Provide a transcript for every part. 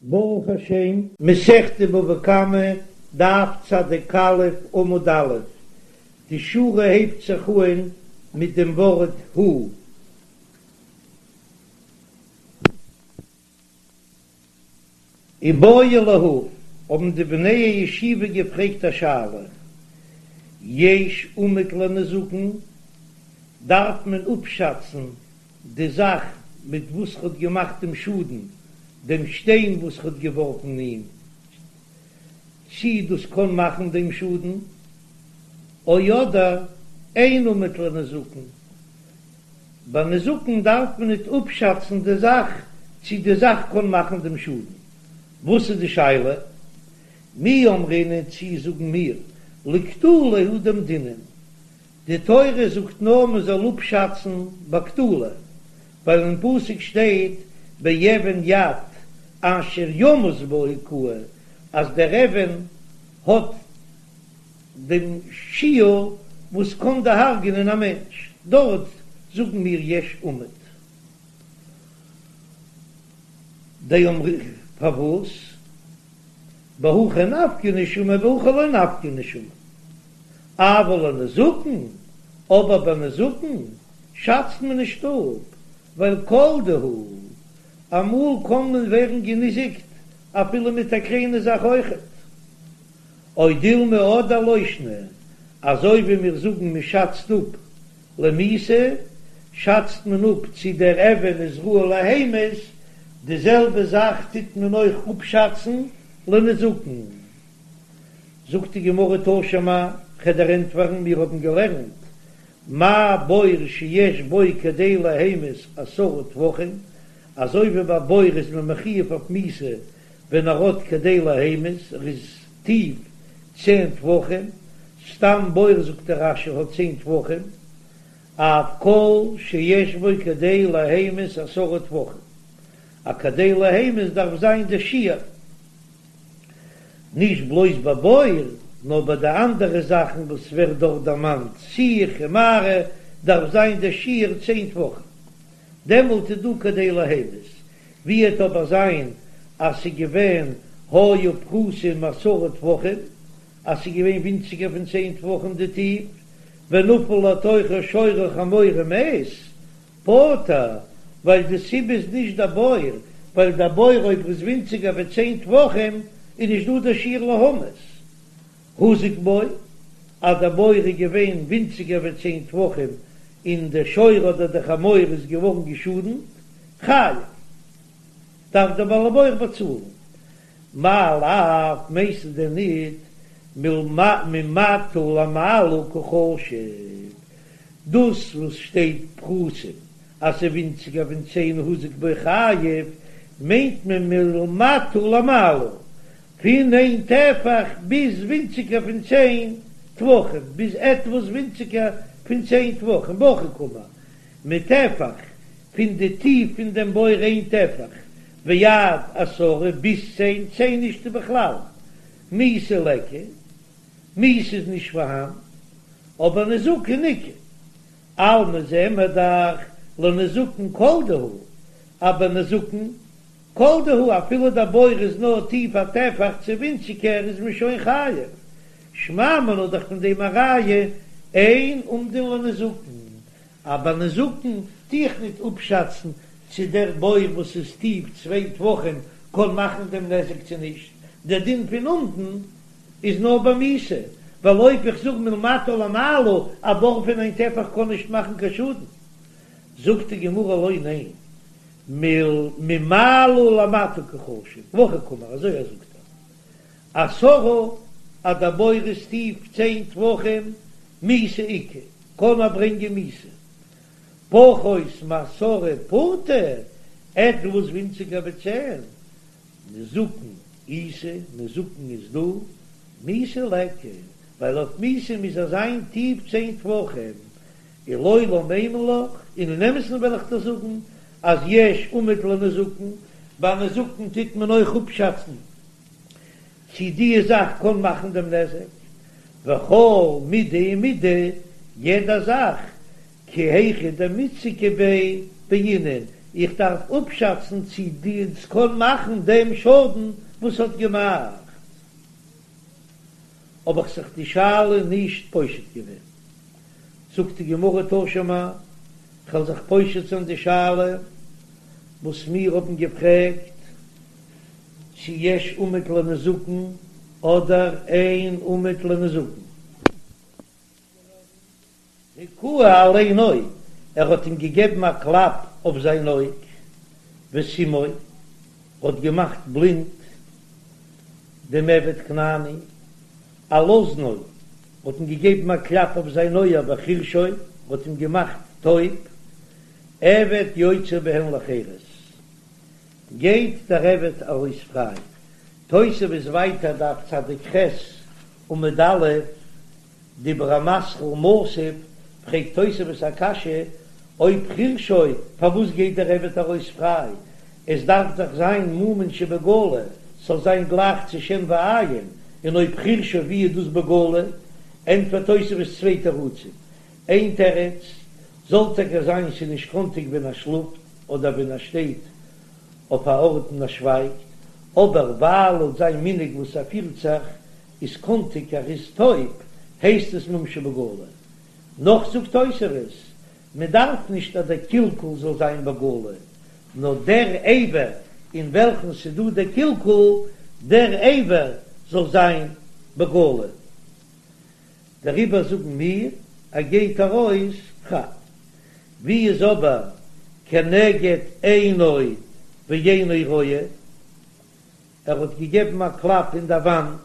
ברוך השם, מסכת בבא קמא, דף צדיק א' עמוד א', די שורה הייבט זיך אהן מיט דעם ווארט הוא. איבעיא להו, האבן די בני הישיבה געפרעגט א שאלה, יש אומד לנזקין, דארף מען אפשאצן די זאך מיט וואס ר'האט געמאכט דעם שאדן, דעם שטיין וואס ר'האט געווארפן אים, צי דאס קען מאכן דעם שאדן, או אדער אין אומד לנזקין, ביי נזקין דארף מען ניט אפשאצן די זאך צי די זאך קען מאכן דעם שאדן. וואס איז די שאלה? מי אמרינן צי זאגן מיר לקטלא הוא דאמדינן, די תורה זאגט נאר מען זאל אפשאצן ביי קטלא, ווייל אין פסוק שטייט באבן יד אשר ימות בה הכהו, אז דער אבן האט דעם שיעור וואס קען דערהרג'ענען א מענטש, דארט זאגן מיר יש אומד. דאמר פארוואס? בהכא נפקא נשמה בהכא לא נפקא נשמה. אבל לנזקין, אבער ביי נזקין שאצט מען נישט אפ, ווייל כל דהו, אמאל קען מען ווערן געניזיקט אפילו מיט א קליינע זאך אויכעט. או דילמא אדער לא שנא, אזוי ווי מיר זאגן מען שאצט אפ למיתה, שאצט מען אפ צי דער אבן איז ראוי להמית, די זעלבע זאך טוט מען אויך אפשאצן לנזקין. זאגט די גמרא תא שמע, כ'וועל דיר ענטפערן, מיר האבן געלערנט מה בור שיש בו כדי להמית עשרה טפחים, אזוי ווי ביי בור איז מען מחויב אויף מיתה ווען ער האט כדי להמית, ער איז טיף צען טפחים, סתם בור זאגט דער רש"י האט צען טפחים, אף כל שיש בו כדי להמית עשרה טפחים, א כדי להמית דארף זיין די שיעור. נישט בלויז ביי בור, נאר ביי די אנדערע זאכן וואס ווערט דארט דערמאנט, שיח און מערה, דארף זיין דער שיעור צען טפחים, דעמאלט איז דא כדי להמית. ווי וועט אבער זיין אז ס'איז געווען היו פחותין מעשרה טפחים, אז ס'איז געווען ווינציגער פון צען טפחים די טיף, ונפל לתוכו שור או חמור ומת, פטור, ווייל די סיבה איז נישט דער בור, ווייל דער בור אויב איז ווינציגער ווי צען טפחים איז נישט דא דער שיעור להמית. הוזק בו, אז דער בור איז געווען ווינציגער ווי צען טפחים און דער שור אדער דער חמור איז געווארן געשאדנט, חייב, דארף דער בעל הבור באצאלן. מאי לאו, מיינסטו דען ניט ממטה למעלה קא חשיב? דאס וואס שטייט פחותין אז ס'איז ווינציגער פון צען הוזק בו חייב, מיינט מען מלמטה למעלה, פון איין טפח ביז ווינציגער פון צען טפחים, ביז עטוואס ווינציגער פון צען טפחים, והכי קאמר, מטפח, פון די טיף פון דעם בור איין טפח, ועד עשרה ביז צען, צען נישטא בכלל, מיתה ליכא, מיתה איז נישט פארהאן, אבער נזקין איכא, אלמא זעען מיר דאך לנזקין כל דהו, אבער נזקין כל דהו אפילו דער בור איז נאר טיף א טפח צו ווינציגער איז מען שוין חייב, שמע מינה דאך פון דעם א ראיה אין אומדין לנזקין, אבער נזקין טו איך ניט אפשאצן צו דער בור וואס איז טיף צוויי טפחים קען מאכן דעם נזק צו נישט, דער דין פון אומדין איז נאר ביי מיתה, ווייל אויב איך זאג מלמטה למעלה א בור פון איין טפח קען נישט מאכן קיין שאדן, זאגט די גמרא לא ניין, ממעלה למטה קא חשיב, והכי קאמר אזוי ער זאגט ער עשרה אז דער בור איז טיף צען טפחים מיתה איכא קען ער ברענגען מיתה פחות מעשרה פורתא עטוואס ווינציגער ווי צען נזקין איתא, נזקין איז דא, מיתה ליכא, ווייל אויף מיתה מוז ער זיין טיף צען טפחים, ולעולם אימא לך, און אין אמת'ן וועל איך דיר זאגן אז יש אומד לנזקין, ביי נזקין טוט מען אויך אפשאצן צי די זאך קען מאכן דעם נזק, וכל מידי ומידי, יעדע זאך כי היכי דמיתזקא ביה בעינן. איך דארף אפשאצן צי דאס קען מאכן דעם שאדן וואס האט געמאכט. האב איך זיך די שאלה נישט פושט געווען. זאגט די גמרא תא שמע, כ'וועל זיך פושט זיין די שאלה וואס מיר האבן געפרעגט, צי יש אומד לנזקין אדער אין אומד לנזקין. הכהו על עינו, ער האט אים געגעבן א קלאפ אויף זיין אויג, וסימאו, האט געמאכט בלינד דעם עבד כנעני, על אזנו, האט אים געגעבן א קלאפ אויף זיין אויער, וחרשו, האט אים געמאכט טויב, עבד יוצא בהן לחירות, גייט דער עבד ארויס פריי. תוספות ווייטער דף צדיק ח' עמוד א', דיבור המתחיל מתיב, פרעגט תוספות א קשיא, אויב חרשו, פארוואס גייט דער עבד ארויס פריי? עס דארף דאך זיין מומין שבגלוי, ס'זאל זיין גלייך צו שן ועין, און אויב חרשו ווי איז דאס בגלוי? ענטפערט תוספות צוויי תירוצים, איין תירוץ, זאל טאקע זיין ס'איז נישט קאנטיג ווען ער שלאפט אדער ווען ער שטייט אויף א ארט און ער שווייגט, אבער ווייל לויט זיין מנהג וואס ער פירט זיך איז קאנטיג ער איז טויב, הייסט עס מום שבגלוי. נאך זאגט תוספות, מען דארף נישט אז דער קלקול זאל זיין בגלוי, נאר דער אבר אין וועלכן ס'איז דא דער קלקול, דער אבר זאל זיין בגלוי. דעריבער זאגן מיר, ער גייט ארויס פריי. ווי איז אבער כנגד עינו ואינו רואה? ער האט געגעבן א קלאפ אין דער וואנט,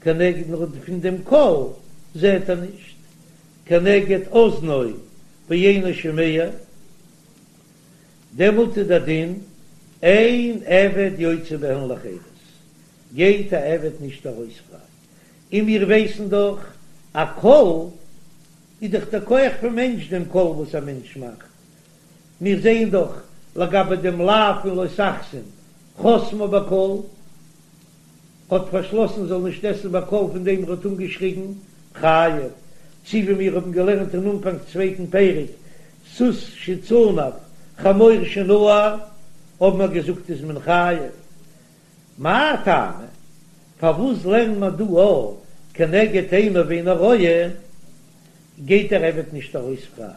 כנגד נאר פון דעם קול זעט ער נישט, כנגד אזנו ואינו שומע, דעמאלט איז דער דין אין עבד יוצא בהן לחירות, גייט א עבד נישט ארויס פריי, און מיר ווייסן דאך א קול איז דאך דער כח פון מענטש דעם קול וואס א מענטש מאכט, מיר זעען דאך לגבי דעם לאו פון לא תחסום חסמה בקול, האט פארשלאסן זאל נישט עסן בקול פון דעם ער האט אנגעשריגן חייב, צי ווי מיר האבן געלערנט אין אנפאנג צווייטן פרק סוס שצנף חמור שנער האבן מיר געזאגט איז מען חייב, מאי טעמא? פארוואס לערנט מען דא א כנגד עינו ואינו רואה? גייט דער עבד נישט ארויס פריי?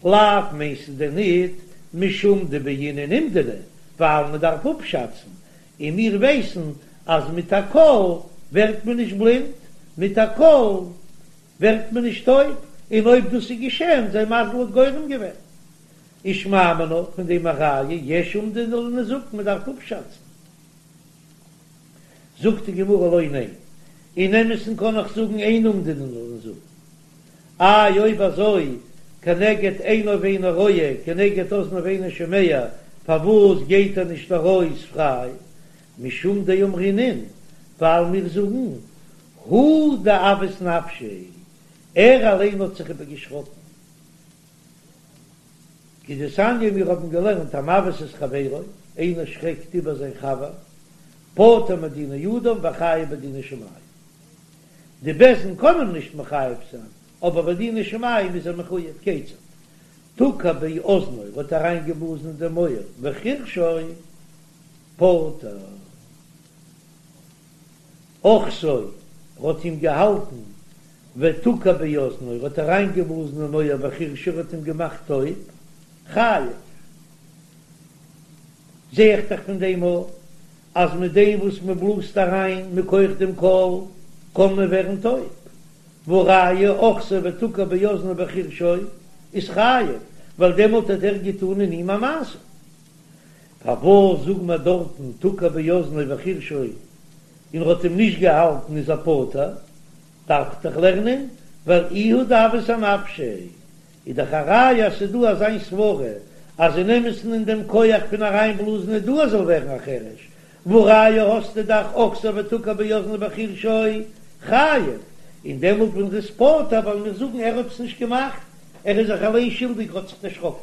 לאו מיינסטו דען ניט משום דבעינן אומדנא, ווייל מען דארף אפשאצן, און מיר ווייסן אז מיט א קול ווערט מען נישט בלינד, מיט א קול ווערט מען נישט טויב, און אויב דאס איז געשען, זיין מזל האט גורם געווען. ושמע מינה, פון דעם א ראיה, יש אומדנא לנזקין, מען דארף אפשאצן. זאגט די גמרא לא ניין, אין אמת'ן קען איך זאגן אין אומדנא לנזקין. איי אויב אזוי כנגד עינו ואינו רואה כנגד אזנו ואינו שומע פארוואס גייט ער נישט ארויס פריי? משום דאמרינן ווייל מיר זאגן הוא דאבעית נפשיה ער אליין האט זיך איבערגעשראקן. כדתניא מיר האבן געלערנט המבעית את חברו, איינער שרעקט איבער זיין חבר, פטור מדיני אדם וחייב בדיני שמים. די בית דין קען אים נישט מחייב זיין, אבער בדיני שמים איז ער מחויב, כיצד? תקע באזנו, האט אריינגעבלאזן אין דעם אויער, וחרשו פטור. אחתו, האט אים געהאלטן, ותקע באזנו, האט אריינגעבלאזן אין אויער וחרשו, האט אים געמאכט טויב, חייב. זע איך דאך פון דעם אויך אז מיט דעם וואס מען בלאזט אריין מכח דעם קול קען מען ווערן טויב, והא ראיה אחתו ותקע באזנו וחרשו איז חייב, ווייל דעמאלט האט ער געטאן אין אים א מעשה. פארוואס זאגן מיר דארטן תקע באזנו וחרשו און ער האט אים נישט געהאלטן איז ער פטור? דארף איך דאך לערנען ווייל איהו דאבעית אנפשיה איז דאך א ראיה אז ס'איז דא אזיין סברה אז אין אמת'ן אין דעם כח פון אריינבלאזן איז דא אז זאל ווערן א חרש, והא ראיה האסטו דאך אחתו ותקע באזנו וחרשו חייב, און דעמאלט ווען ר'איז פטור וועלן מיר זאגן ער האט עס נישט געמאכט, ער איז זיך אליין שולדיג ער האט זיך דערשראקן.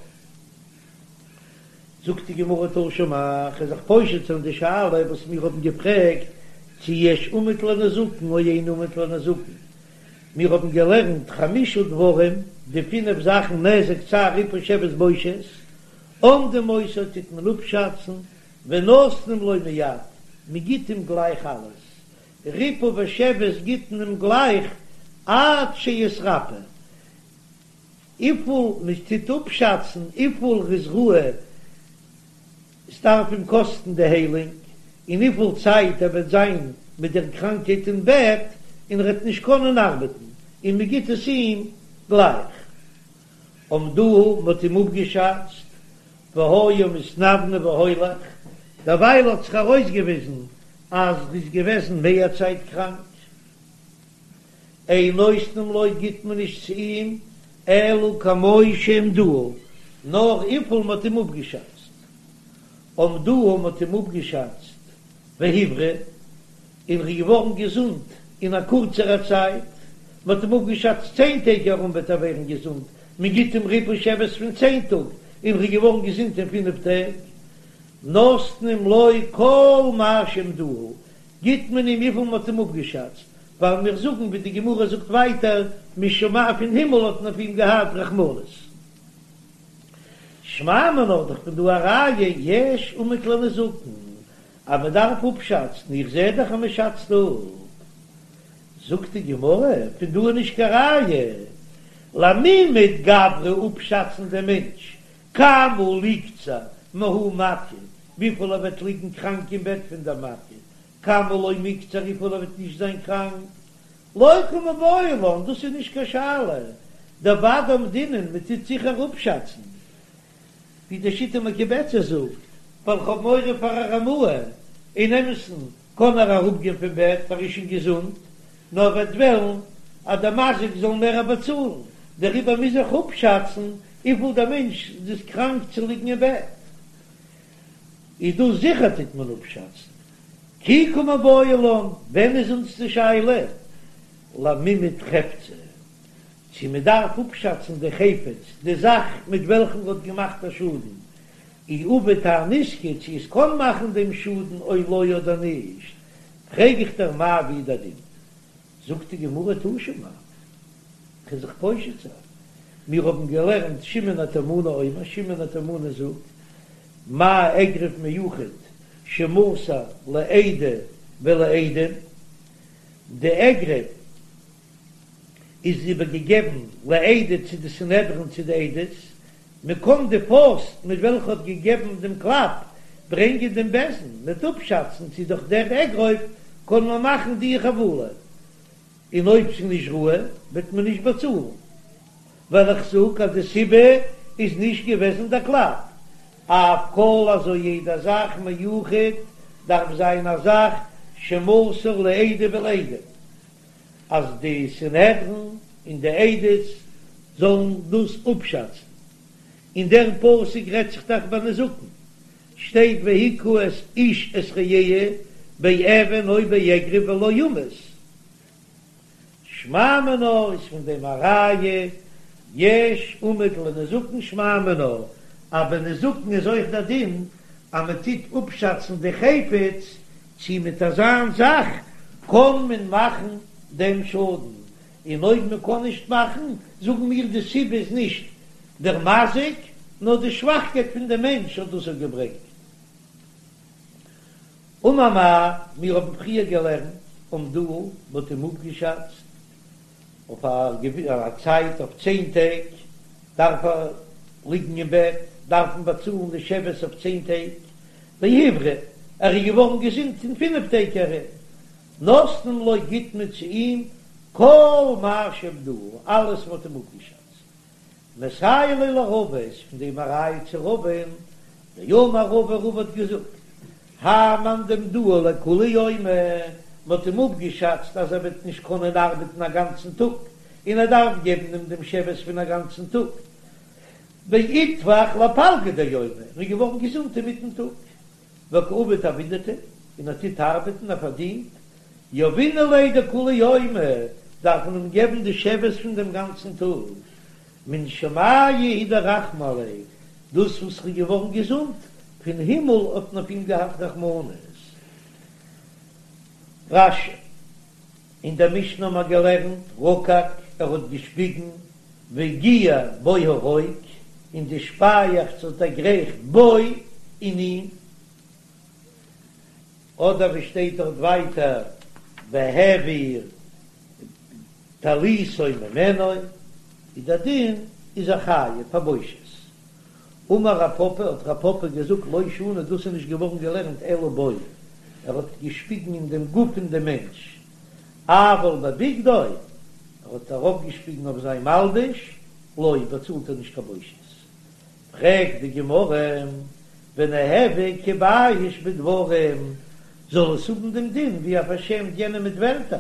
זאגט די גמרא תא שמע, כ'וועל זיך פושט זיין די שאלה וואס מיר האבן געפרעגט צו יש אומד לנזקין או אין אומד לנזקין, מיר האבן געלערנט חמשה דברים, די פינף זאכן נזק צער ריפוי שבת בושת, אומדין אותו טוט מען אפשאצן, ונותנים לו מיד, מען גיט אים גלייך אלעס, ריפוי ושבת גיט מען אים גלייך עד שיתרפא, וויפיל מען טוט אפשאצן וויפיל ר'איז ראוי ס'דארף אים קאסטן די היילונג, און וויפיל צייט ער וועט זיין מיט דער קראנקהייט אין בעט און ער וועט נישט קענען ארבעטן, און מען גיט עס אים גלייך. אמדוהו, מען האט אים אפגעשאצט, והיה מתנוונה והולך, דערווייל האט זיך ארויסגעוויזן אז ר'איז געוועזן מער צייט קראנק. אין נותנים לו גיט מען נישט צו אים אלא כמו שאמדוהו, נאר וויפיל מ'האט אים אפגעשאצט. אמדוהו מ'האט אים אפגעשאצט והבריא, און ר'איז געווארן געזונט אין א קורצערע צייט, מ'האט אים אפגעשאצט צען טעג ארום וועט ער ווערן געזונט, מ'גיט אים ריפוי שבת פון צען טאג, און ר'איז געווארן געזונט אין פינף טעג. נותנים לו כל מה שאמדוהו, גיט מען אים וויפיל מ'האט אים אפגעשאצט, ווייל מיר זאגן ווי די גמרא זאגט ווייטער, משמים פון הימל האט מען אויף אים געהאט רחמנות. שמע מינה דאך פון דא א ראיה יש אומד לנזקין אז מען דארף אפשאצן, איך זע דאך אז מען שאצט אפ. זאגט די גמרא, פון דא איז נישט קיין ראיה למימד גברא אפשאצן דעם מענטש כמה ליקצר מההיא מכה, וויפיל ער וועט ליגן קראנק אין בעט פון דער מכה, כמה לא מיקצר וויפיל ער וועט נישט זיין קראנק, לא קא מיבעיא לן, דאס איז נישט קיין שאלה, דודאי אמדינן, מען טוט זיכער אפשאצן, ווי די שיטה מקובצת זאגט, ווייל כ'האב מורא פאר א רמאה, אין אמת'ן קען ער אראפגיין פון בעט ער איז שוין געזונט, נאר וועט וועלן אז דער מזיק זאל מער באצאלן, דעריבער מוז איך אפשאצן וויפיל דער מענטש איז קראנק צו ליגן אין בעט. איז דאס זיכער טוט מען אפשאצן. כי קא מיבעיא לן, ווען איז אונז די שאלה? למימד חפצא, צו מען דארף אפשאצן די חפץ, די זאך מיט וועלכן מען האט געמאכט א שאדן, אי עביד האי נזקא, צו עס קען מאכן דעם שאדן או לא אדער נישט, פרעג איך דיר מאי ווי דער דין? זאגט די גמרא תא שמע, כ'וועל זיך פושט זיין, מיר האבן געלערנט שמעון התימני אומר, שמעון התימני זאגט, מה אגרוף מיוחד שמסר לעדה ולעדים, די אגרוף איז איבערגעגעבן לעדה צו די סנהדרין צו די עדות, מען קען די פויסט מיט וועלכע האט געגעבן דעם קלאפ ברענגען דעם בית דין מ'וועט אפשאצן צו דורך דער אגרוף קען מען מאכן די חבלה, און אויב ס'איז נישט ראוי וועט מען נישט באצאלן, ווייל איך זאג אז די סיבה איז נישט געוועזן דער קלאפ, אף כל אזוי יעדע זאך מיוחד דארף זיין א זאך שמסר לעדה ולעדים. אז די סנהדרין און די עדות זאלן דאס אפשאצן, און דער פסוק רעדט זיך דאך ביי נזקין, שטייט והכה את איש את רעהו באבן או באגרוף ולא יומת, שמע מינה איז פון דעם א ראיה, יש אומד לנזקין שמע מינה, אז ביי נזקין איז אויך דער דין אז מען טוט אפשאצן די חפץ צי מיט אזאן זאך קען מען מאכן דעם שאדן, און אויב מען קען נישט מאכן, זאגן מיר די סיבה איז נישט דער מזיק, נאר די שוואכקייט פון דעם מענטש האט דאס געברענגט. אמר מר, מיר האבן פריער געלערנט, אמדוהו, מען האט אים אפגעשאצט אויף א צייט אויף צען טעג דארף ער ליגן אין בעט, דארף מען באצאלן די שבת אויף צען טעג, והבריא, ער איז געווארן געזונט אין פינף טעג ארום, נותנים לו גיט מען צו אים כל מה שאמדוהו, אלעס וואס מ'האט אים אפגעשאצט. מסייע ליה לרבא איז פון דעם א ראיה צו רבא'ן, דאמר רבא רבא האט געזאגט, האי מאן דאמדוהו לכולי יומא, מ'האט אים אפגעשאצט אז ער וועט נישט קענען ארבעטן א גאנצן טאג, און ער דארף געבן אים דעם שבת פון א גאנצן טאג, ואיתפח לפלגא דיומא, און איז געווארן געזונט אינמיטן טאג, וקא עביד עבידתיה, און ער טוט ארבעטן, ער פארדינט, יהבינן ליה דכולי יומא, דארף מען אים געבן די שבת פון דעם גאנצן טאג, מן שמיא הוא דרחמו עליה, דאס וואס ער איז געווארן געזונט, פון הימל האט מען אויף אים געהאט רחמנות. רש"י, אין דער משנה האבן מיר געלערנט, רקק, ער האט געשפיגן, והגיע בו הרוק. און די שפייעכץ האט דערגרייכט בו אין אים, אדער ווי שטייט דארט ווייטער והעביר טליתו ממנו, איז דער דין איז ער חייב פאר בושת. אמר רב פפא, האט רב פפא געזאגט לא שנו דאס איז נישט געווארן געלערנט אלא בו, ער האט געשפיגן אין דעם גוף פון דעם מענטש, אבל בבגדו, ער האט ארויפגעשפיגן אויף זיין מלבוש, לא, באצאלט ער נישט קיין בושת. פרעגט די גמרא, וניהוו כבייש בדברים, זאל עס האבן דעם דין ווי ער פארשעמט יענעם מיט ווערטער?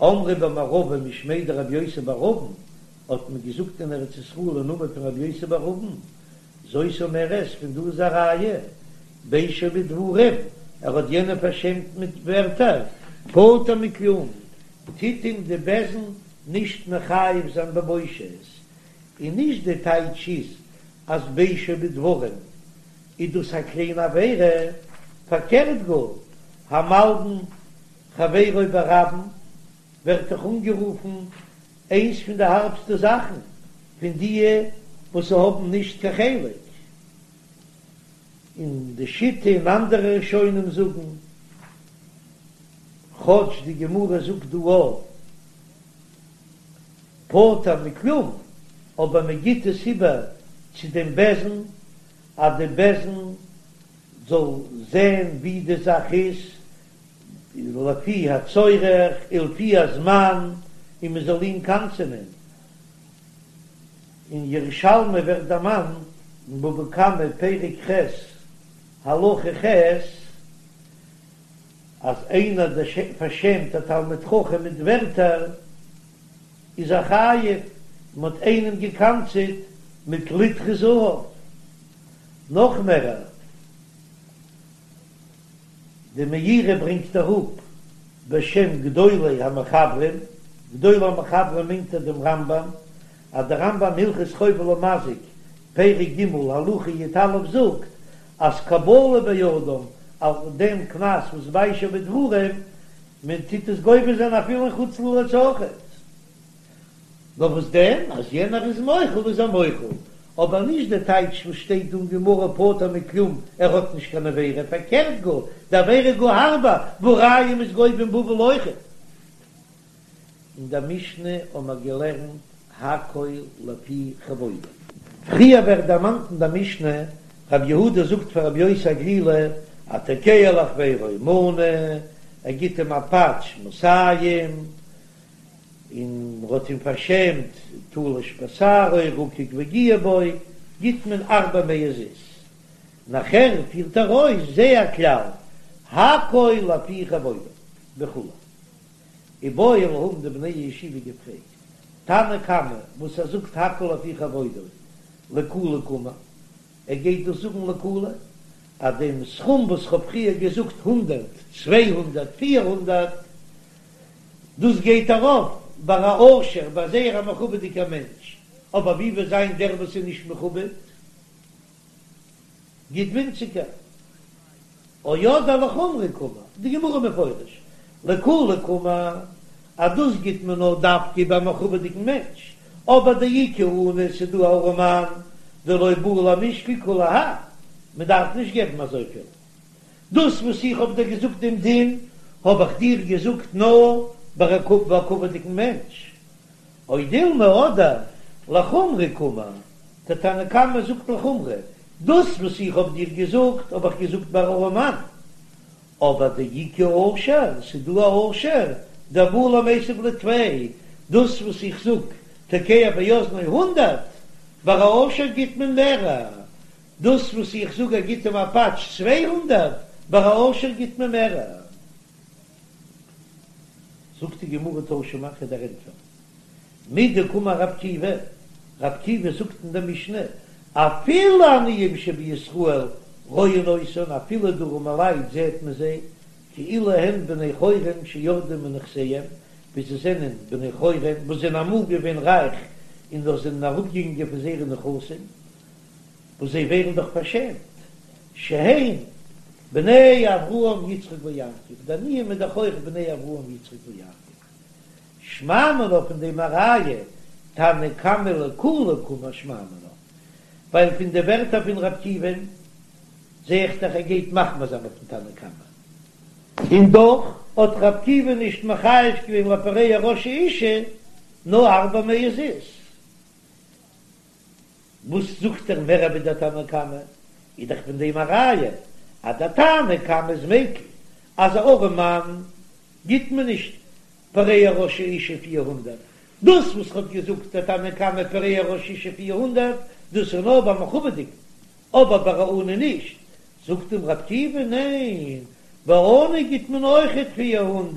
אמרי במערבא משמיה דרבי יוסי בר אבין, האט מען געזאגט אין ארץ ישראל אין נאמען פון רבי יוסי בר אבין, זאת אומרת, פון דא איז א ראיה, ביישו בדברים, ער האט יענעם פארשעמט מיט ווערטער, פטור מכלום, טוט אים די בית דין נישט מחייב זיין בבושת, און נישט די טייטש איז אז ביישו בדברים איז דאס א קליינע עבירה, פארקערט גאר, המלבין חברו ברבים ווערט דאך אנגערופן איינס פון די הארבסטע זאכן פון דיע וואס האבן נישט קיין חלק אין די שיטה און אנדערע ראשונים זאגן כאטש די גמרא זאגט דא א פטור מכלום אבער מען גיט עס איבער צו דעם בית דין אז די בית דין זאל זען ווי די זאך איז לפי הצורך ולפי הזמן און מען זאל אים קנס'ענען. אין ירושלמי ווערט דערמאנט אין בבא קמא פרק ח' הלכה ח' אז איינער פארשעמט א תלמיד חכם מיט ווערטער איז ער חייב, מען האט איינעם געקנס'עט מיט ליטרא זהב, נאך מערער. די מאירי ברענגט אראפ בשם גדולי המחברים, גדולי המחברים מיינט ער דעם רמב"ם, אז דער רמב"ם הלכות חובל ומזיק, פרק ג' הלכה י"א זאגט אז קבלה באדם אויף דעם קנס וואס ביישו בדברים, מען טוט עס גובה זיין אפילו אין חוץ לארץ אויכעט. נאר וואס דען אז יענער איז מוחל איז ער מוחל, אבער נישט די טייטש וואס שטייט דא אין גמרא פטור מכלום ער האט נישט קיין עבירה, פארקערט גאר, די עבירה גאר הארבער, והא ראיה מ'איז גובה אין בבל אויכעט. אין דער משנה האבן מיר געלערנט הכל לפי כבודו. פריער ווערט דערמאנט אין דער משנה, רבי יהודה זאגט פאר רבי יוסי הגלילי, התוקע לחבירו מנה, ער גיט אים א פאטש מאתים, און מ'האט אים פארשעמט, תלש בשערו, רקק והגיע בו, גיט מען ארבע מאות זוז. נאכער פירט ער אויס זה הכלל, הכל לפי כבודו, וכו'. איבעיא להו האבן די בני הישיבה געפרעגט, תנא קמא וואס ער זאגט הכל לפי כבודו, לקולא קאמר, ער גייט דאס זאגן לקולא, אז דעם סכום וואס כ'האב פריער געזאגט הונדערט, 200, 400, דאס גייט ארויף ביי א עושר, ביי זייער א מכובד'יגער מענטש, אבער ווי וועט זיין דער וואס איז נישט מכובד, גיט ווינציגער. או אדער לחומרא קאמר, די גמרא מפורש, לקולא קאמר, אז דאס גיט מען נאר דווקא ביי א מכובד'יגן מענטש, אבער דאיכא עני ס'איז דא א ארעמאן דלא בעי למשקל כולי האי, מען דארף נישט געבן אזויפיל. דאס וואס איך האב דיר געזאגט דעם דין, האב איך דיר געזאגט נאר ביי א מכובד'יגן מענטש. או דילמא אדער לחומרא קאמר, דער תנא קמא זאגט לחומרא, דאס וואס איך האב דיר געזאגט האב איך געזאגט ביי ארעמאן, אבער דאיכא עושר, ס'איז דא א עושר, דבעי למיתב ליה טפי, דאס וואס איך זאג תוקע באזנו הונדרעט, ביי א עושר גיט מען מערער, דאס וואס איך זאג ער גיט אים א פאטש 200, ביי א עושר גיט מען מערער. זאגט די גמרא תא שמע כ'וועל דיר ענטפערן מדקאמר רבי עקיבא, רבי עקיבא זאגט אין דער משנה, אפילו עניים שבישראל רואין אותן, אפילו די ארעמעלייט זעט מען זיי, כאילו הן בני חורין שירדו מנכסיהם, ווי זיי זענען בני חורין וואס זענען אמאל געווען רייך און דאך זענען אראפגעגאנגען פון זייערע נכסים, וואס זיי ווערן דאך פארשעמט, שהן בני אברהם יצחק ויעקב, די עניים איז דאך אויך בני אברהם יצחק ויעקב, שמע מינה פון דעם א ראיה, תנא קמא לקולא קאמר שמע מינה. ווייל פון די ווערטער פון ר' עקיבא'ן זע איך דאך ער גייט מחמיר זיין אויפן תנא קמא, און דאך האט ר' עקיבא נישט מחייב געווען לפורע ראש האשה נאר ארבע מאות זוז. וואס זאגט ער מער ווי דער תנא קמא? איז דאך פון דעם א ראיה אז דער תנא קמא איז מיקל אז א ארעם מאן גיט מען נישט פורע ראש האשה 400, דאס וואס האט געזאגט דער תנא קמא פורע ראש האשה 400 דאס איז נאר ביי מכובד'יגן אבער ביי א עני נישט, זאגט אים ר' עקיבא ניין ביי עני גיט מען אויכעט 400,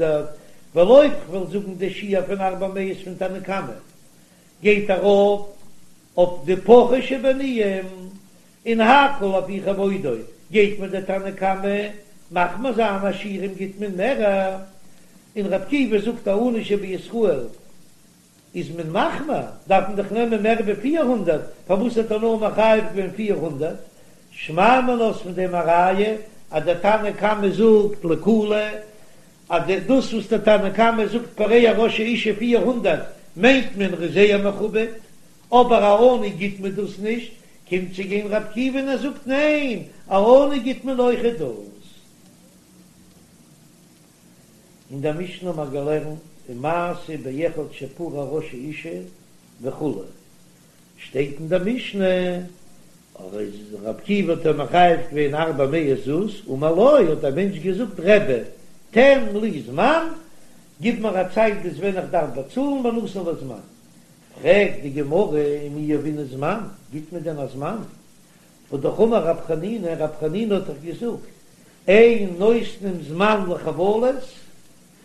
ווייל אויב כ'וועל זאגן די שיעור פון ארבע מאות פון תנא קמא גייט ארויף אויף די פחות שבעניים, און הכל לפי כבודו גייט מיר דער תנא קמא מחמיר זיין עשירים גיט מען מערער, און ר' עקיבא זאגט א עני שבישראל איז מען מחמיר דארף מען דאך נעמען מער ווי 400, פארוואס האט ער נאר מחייב געווען 400? שמע מינה איז פון דעם א ראיה אז דער תנא קמא זאגט לקולא אז דאס וואס דער תנא קמא זאגט פורע ראש האשה 400 מיינט מען ר'איז זייער מכובד, אבער א עני גיט מען דאס נישט, קומט צו גיין ר' עקיבא און ער זאגט ניין, א עני גיט מען אויכעט דאס. אין דער משנה האט מען געלערנט ומעשה באחד שפרע ראש האשה וכו', שטייט אין דער משנה אז ר' עקיבא האט אים מחייב געווען ארבע מאות זוז, אמר לו האט דער מענטש געזאגט רבי תן לי זמן, גיב מיר א צייט ביז ווען איך דארף באצאלן ונתן לו זמן, פרעגט די גמרא ומי יהבינן זמן, גיט מען דען א זמן? והא אמר רב חנינא, רב חנינא האט דאך געזאגט, אין נותנים זמן לחבלות,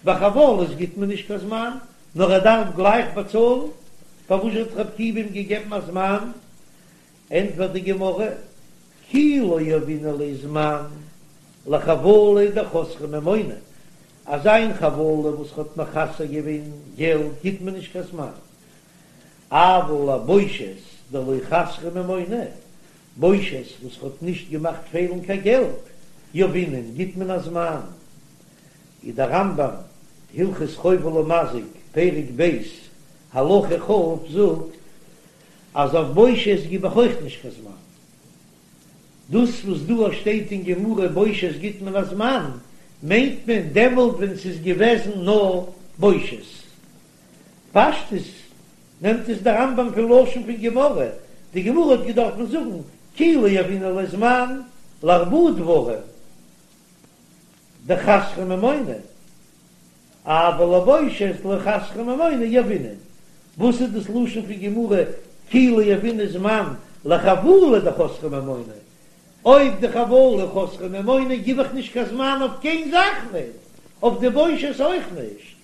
ביי חבלות גיט מען נישט קיין זמן, נאר ער דארף גלייך באצאלן, פארוואס האט רב עקיבא אים געגעבן א זמן? ענטפערט די גמרא, כי לא יהבינן ליה זמן לחבלה דחסרה ממונא, אזא איין חבלה וואס האט מחסר געווען געלט גיט מען נישט קיין זמן, אבל לבושת דלא חסרה ממונא, בושת וואס האט נישט געמאכט פעלן קיין געלט, יהבינן גיט מען א זמן. איז דער רמב"ם, הלכות חובל ומזיק, פרק ב', הלכה כ', זאגט אז אויף בושת גיב איך אויך נישט קיין זמן. דאס וואס דא שטייט אין גמרא בושת גיט מען א זמן, מיינט מען דעמאלט ווען ס'איז געוועזן נאר בושת. פשטות נעמט עס דער רמב"ם פון לשון פון גמרא, די גמרא האט געדארפן זאגן כי לא יהבינן ליה זמן לארבעה דברים דחסרה ממונא, אבל לבושת דלא חסרה ממונא יהבינן. וואס איז דאס לשון פון גמרא כי לא יהבינן זמן לחבלה דחסרה ממונא? אויב די חבלה חסרה ממונא גיב איך נישט קיין זמן אויף קיין זאך ניט, אויף די בושת אויך נישט.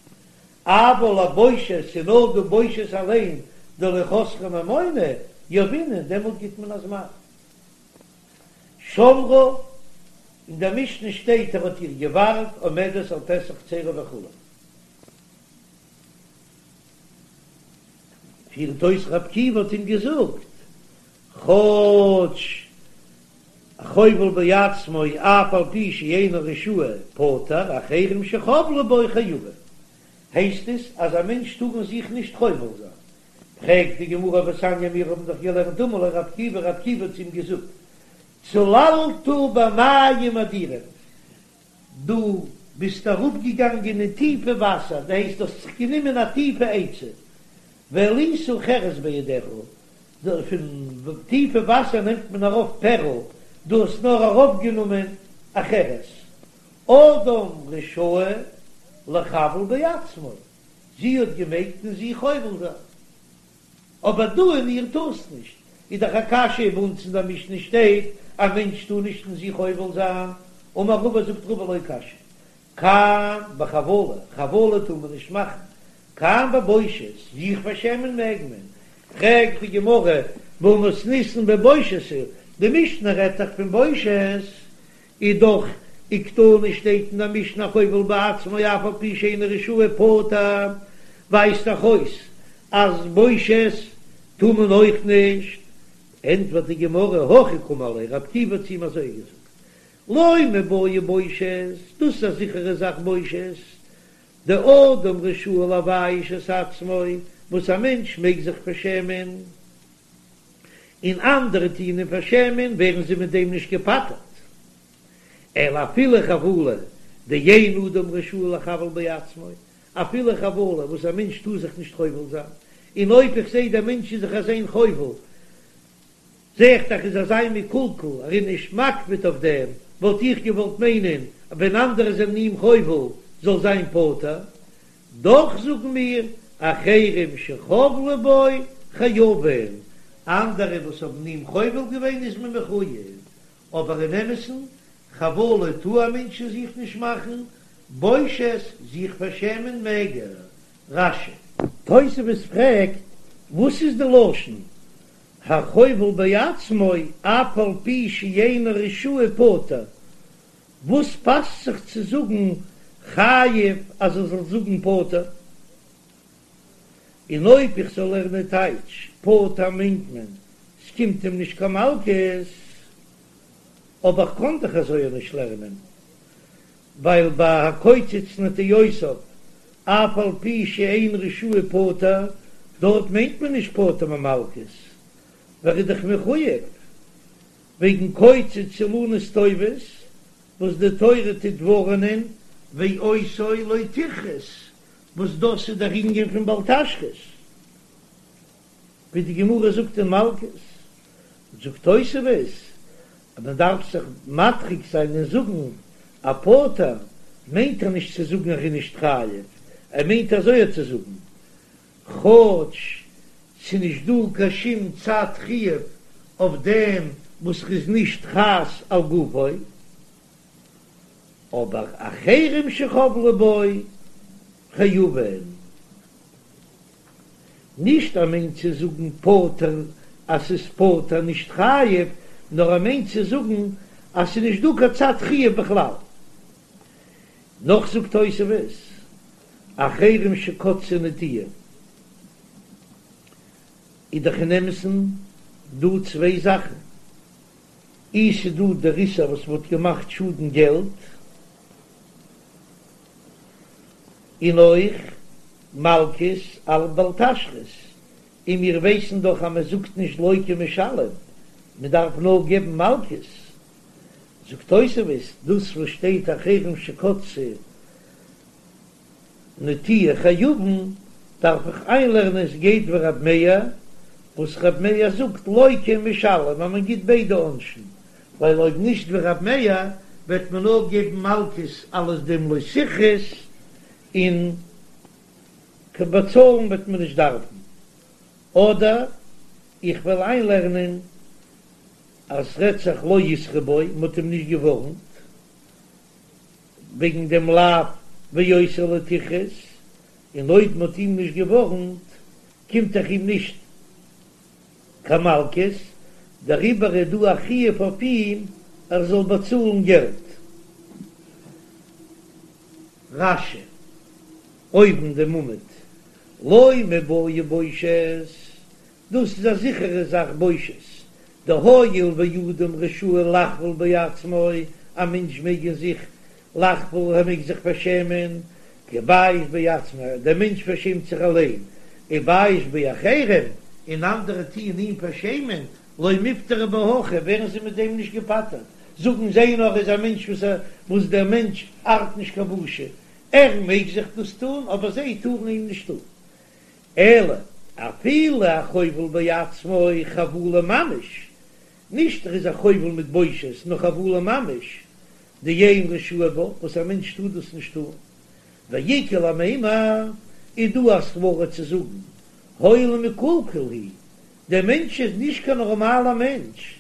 אבל לבושת ס'איז נאר די בושת אליין דלא חסרה ממונא יהבינן, דעמאלט גיט מען א זמן. שמרה, אין דער משנה שטייט ער האט איר געווארט עומדת על פתח חצרו וכו'. פירט אויס רב עקיבא האט אים געזאגט, כאטש חובל בעצמו אף על פי שאינו רשאי פטור, אחרים שחבלו בו חייבים. הייסט עס אז א מענטש טאר אין זיך נישט חובל זיין. פרעגט די גמרא והתניא מיר האבן דאך געלערנט אמר לו רב עקיבא רב עקיבא האט צו אים געזאגט צללת במים אדירים דו ביסט אראפגעגאנגען אין טיפע וואסער דאס הייסט דו האסט זיך גענומען א טיפע עצה והעלית חרס בידך פון טיפע וואסער נעמט מען ארויף פערל דו האסט נאר ארויפגענומען א חרס אדם רשאי לחבל בעצמו זי האט געמעגט אין זיך חובל זיין, אבער דו אין איר טארסט נישט, איז דאך א קשיא, ביי אונז אין דער משנה שטייט א מענטש טאר נישט אין זיך חובל זיין, אמר רבא זאגט רבא לא קשיא, כאן בחבלה, חבלה טאר מען נישט מאכן, כאן בבושת, זיך פארשעמען מעג מען, פרעגט די גמרא, והא מתניתין בבושת הוא, די משנה רעדט דאך פון בושת, איז דאך וקתני שטייט אין די משנה החובל בעצמו אף על פי שאינו רשאי פטור, ווייזט דאך אויס אז בושת טאר מען אויך נישט, ענטפערט די גמרא הכי קאמר ליה רב עקיבא האט צו אים אזוי געזאגט לא מיבעיא בושת, דאס איז א זיכערע זאך בושת, דאדם רשאי לבייש את עצמו, וואס א מענטש מעג זיך פארשעמען. און אנדערע טוען אים פארשעמען, ווערן זיי מיט דעם נישט געפטר'ט. אלא אפילו חבלה דאין אדם רשאי לחבל בעצמו, אפילו חבלה וואס א מענטש טאר זיך נישט חובל זיין, און אויב איך זע דער מענטש איז זיך אליין חובל, זע איך דאך איז אזא מקולקל, ער איז נישט מקפיד אויף דעם, וואלט איך געוואלט מיינען אז ווען אנדערע זענען אים חובל זאל זיין פטור, דאך זאגן מיר אחרים שחבלו בו חייבין, אנדערע וואס האבן אים חובל געווען איז מען מחוייב, אבער אין אמת'ן, חבלה טאר א מענטש אין זיך נישט מאכן, בושת, זיך פארשעמען מעג ער. רש"י. תוספות פרעגט, וואס איז די לשון החובל בעצמו אף על פי שאינו רשאי פטור, וואס פאסט זיך צו זאגן חייב אז ער זאל זאגן פטור? און אויב איך זאל לערנען טייטש פטור מיינט מען ס'קומט אים נישט קיין מלקות, אבער כ'קען דאך אזוי אויך נישט לערנען, ווייל ביי הקוצץ נטיעותיו אף על פי שאין רשאי פטור, דארט מיינט מען נישט פטור ממלקות, ווייל ער איז דאך מחוייב וועגן קוצץ אילנות טובות וואס די תורה טוט ווארענען ואותו לא תכרת, וואס דאס איז דער ענין פון בל תשחית, ווי די גמרא זאגט אין מלקות, זאגט תוספות אז מען דארף זיך מדחיק זיין און זאגן א פטור מיינט ער נישט צו זאגן ער איז נישט חייב, ער מיינט אזוי צו זאגן כאטש ס'נישט דא קיין שום צד חיוב אויף דעם וואס ר'איז נישט חס על גופו, אבער אחרים שחבלו בו חייבין. נישט ער מיינט צו זאגן פטור אז ס'איז פטור נישט חייב, נאר ער מיינט צו זאגן אז ס'איז נישט דא קיין צד חיוב בכלל. נאך זאגט תוספות, אחרים שקצצו נטיעה, איז דאך אין אמת'ן דא צוויי זאכן, אי ס'איז דא דער איסור וואס מ'האט געמאכט שאדן געלט, און אויך מלקות על בל תשחית, און מיר ווייסן דאך אז מען זאגט נישט לוקה ומשלם, מען דארף נאר געבן מלקות. זאגט תוספות, דאס וואס שטייט אחרים שקצצו נטיעה חייבין, דארף איך איינלערנען עס גייט ווי רב מאיר, וואס רב מאיר זאגט לוקה ומשלם אז מען גיט ביידע עונשים, ווייל אויב נישט ווי רב מאיר וועט מען נאר געבן מלקות אלס דעם לא תכרות און קיין באצאלן וועט מען נישט דארפן, אדער איך וועל איינלערנען אז ס'רעדט זיך לא התרו בו, מ'האט אים נישט געווארנט וועגן דעם לאו ואותו לא תכרות, און אויב מ'האט אים נישט געווארנט קומט דאך אים נישט קיין מלקות, דעריבער איז דא א חיוב אויף אים ער זאל באצאלן געלט. רש"י, אויבן דעם עמוד, לא מיבעיא בושת, דאס איז א זיכערע זאך בושת, דהואיל ואדם רשאי לחבול בעצמו, א מענטש מעג אין זיך לחבול, ער מעג זיך פארשעמען, כי בייש בעצמו, דער מענטש פארשעמט זיך אליין, ובייש באחרים, און אנדערע טוען אים פארשעמען, לא מיפטרי בהכי, ווערן זיי מיט דעם נישט געפטר'ט, זאגן זיי נאר איז א מענטש וואס ער, וואס דער מענטש ארט נישט קיין בושה, ער מעג זיך דאס טון, אבער זיי טארן אים נישט טון. אלא אפילו החובל בעצמו חבלה ממש, נישט ער איז א חובל מיט בושת, נאר חבלה ממש, דאין רשאי בה, וואס א מענטש טאר דאס נישט טון. ואיכא למימר, איז דא א סברא צו זאגן, הואיל ומקולקל הוא, דער מענטש איז נישט קיין נארמאלער מענטש,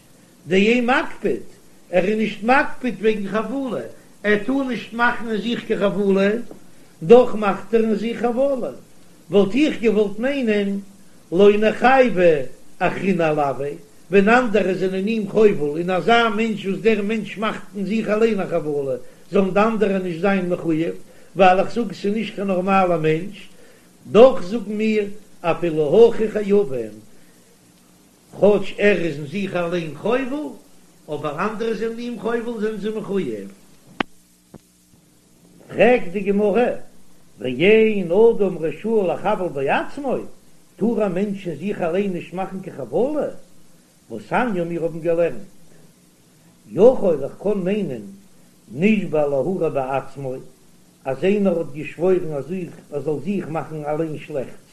דאין מקפיד, ער איז נישט מקפיד וועגן חבלה, ער טאר נישט מאכן אין זיך קיין חבלה, דאך מאכט ער אין זיך חבלה, וואלט איך געוואלט מיינען לא ניחייבו אחריני עילויה, ווען אנדערע זענען אים חובל, און אזא מענטש וואס דער מענטש מאכט אין זיך אליין א חבלה, זאלן די אנדערע נישט זיין מחויב, ווייל איך זאג ס'איז נישט קיין נארמאלער מענטש, דאך זאגן מיר אפילו הכי חייבין, כאטש ער איז אין זיך אליין חובל, אבער אנדערע זענען אים חובל זענען זיי מחויב. פרעגט די גמרא, ואין אדם רשאי לחבל בעצמו, טאר א מענטש אין זיך אליין נישט מאכן קיין חבלה? והתניא מיר האבן געלערנט, יכול איך קען מיינען נשבע להרע בעצמו, אז איינער האט געשוואוירן אז ער זאל זיך מאכן אליין שלעכטס,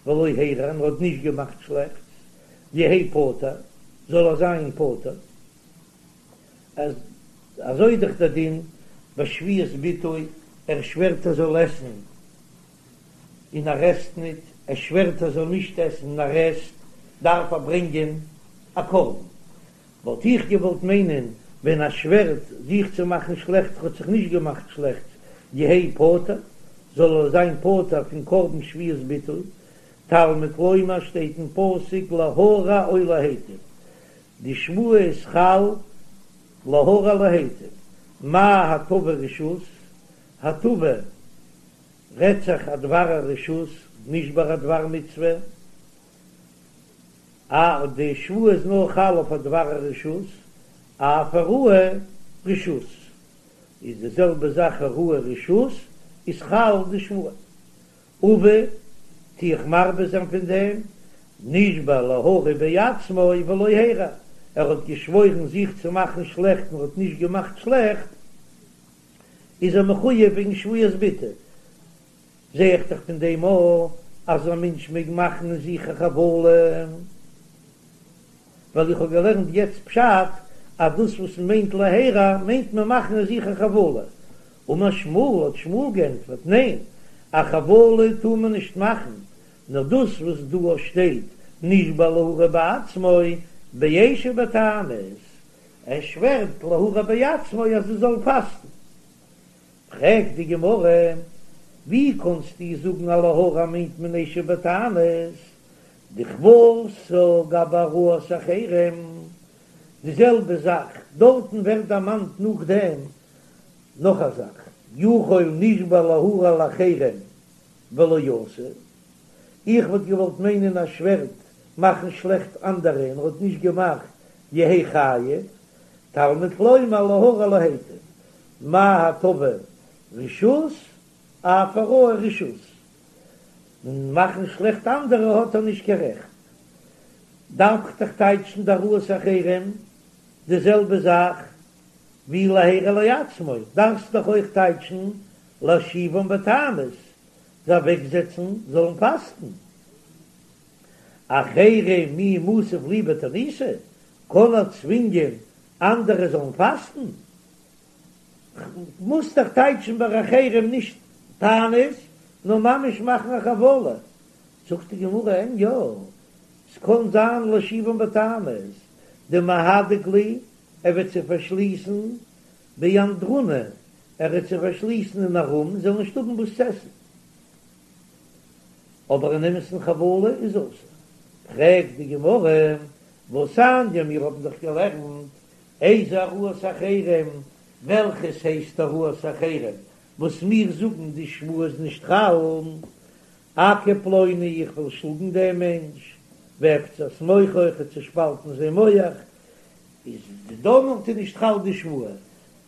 ולא הרע און ער האט נישט געמאכט שלעכטס, יהא פטור, זאל ער זיין פטור. אז אזוי איז דאך דער דין ביי שבועת ביטוי, ער שווערט ער זאל עסן און ער עסט ניט, ער שווערט ער זאל נישט עסן און ער עסט, דארף ער ברענגען א קרבן. וואלט איך געוואלט מיינען ווען ער שווערט זיך צו מאכן שלעכטס האט זיך נישט געמאכט שלעכטס, יהא פטור, זאל ער זיין פטור פון קרבן שבועת ביטוי, תלמוד לומר שטייט אין פסוק להרע או להיטיב, די שבועה איז חל להרע להיטיב, מה הטבה רשות, הטבה רעדט זיך א דבר הרשות, נישט ביי א דבר מצוה, א די שבועה איז נאר חל אויף א דבר הרשות, אף הרעה רשות איז די זעלבע זאך הרעה רשות איז חל די שבועה. אביא, טו איך מרבה זיין פון דעם, נשבע להרע בעצמו ולא הרע, ער האט געשוואוירן זיך צו מאכן שלעכט און האט נישט געמאכט שלעכט, איז ער מחויב וועגן שבועת ביטוי. זע איך דאך פון דעם אויך אז א מענטש מעג מאכן אין זיך א חבלה, ווייל איך האב געלערנט יעצט פשט אז דאס וואס מען מיינט להרע מיינט מען מאכן אין זיך א חבלה, אמר שמואל האט שמואל גענטפערט, ניין, א חבלה טאר מען נישט מאכן, נאר דאס וואס דא שטייט נשבע להרע בעצמו באשב בתענית, ער שווערט להרע בעצמו אז ער זאל פאסטן. פרעגט די גמרא, ווי קאנסטו זאגן אז להרע מיינט מען אשב בתענית, דכוותה גבי הרעת אחרים, די זעלבע זאך דארטן ווערט דערמאנט נאכדעם נאך א זאך, יכול נשבע להרע לאחרים ולא עשה, איך וואלט געוואלט מיינען ער שווערט מאכן שלעכט אנדערע און ער האט נישט געמאכט יהא חייב, תלמוד לומר להרע להיטיב, מה הטבה רשות אף הרעה רשות, און מאכן שלעכט אנדערע האט ער נישט קיין רעכט. דארף איך דאך טייטשן די הרעת אחרים די זעלבע זאך ווי להרע לעצמו, דארפסט דאך אויך טייטשן להושיבם בתענית, זיי אוועקזעצן זאלן פאסטן. אחרים מי מתיב להו בתעניתא, קען ער צווינגען אנדערע זאלן פאסטן? מוזט דאך טייטשן ביי אחרים נישט תענית, נאר ממש מאכן א חבלה. זאגט די גמרא אין יא, ס'קען זיין להושיבם בתענית, דמהדק להו, ער וועט זיי פארשליסן באנדרונא, ער וועט זיי פארשליסן אין א רום, זיי זאלן נישט האבן וואס צו עסן. אבער אין אמת'ן חבלה איז אסור. פרעגט די גמרא, והתניא, מיר האבן דאך געלערנט איזה הרעת אחרים, וועלכעס הייסט הרעת אחרים, וואס מיר זאגן די שבועה איז נישט חל, אכה פלוני איך וועל שלאגן דעם מענטש, ואפצע את מוחו איך וועל צושפאלטן זיין מח, איז דעמאלט איז נישט חל די שבועה,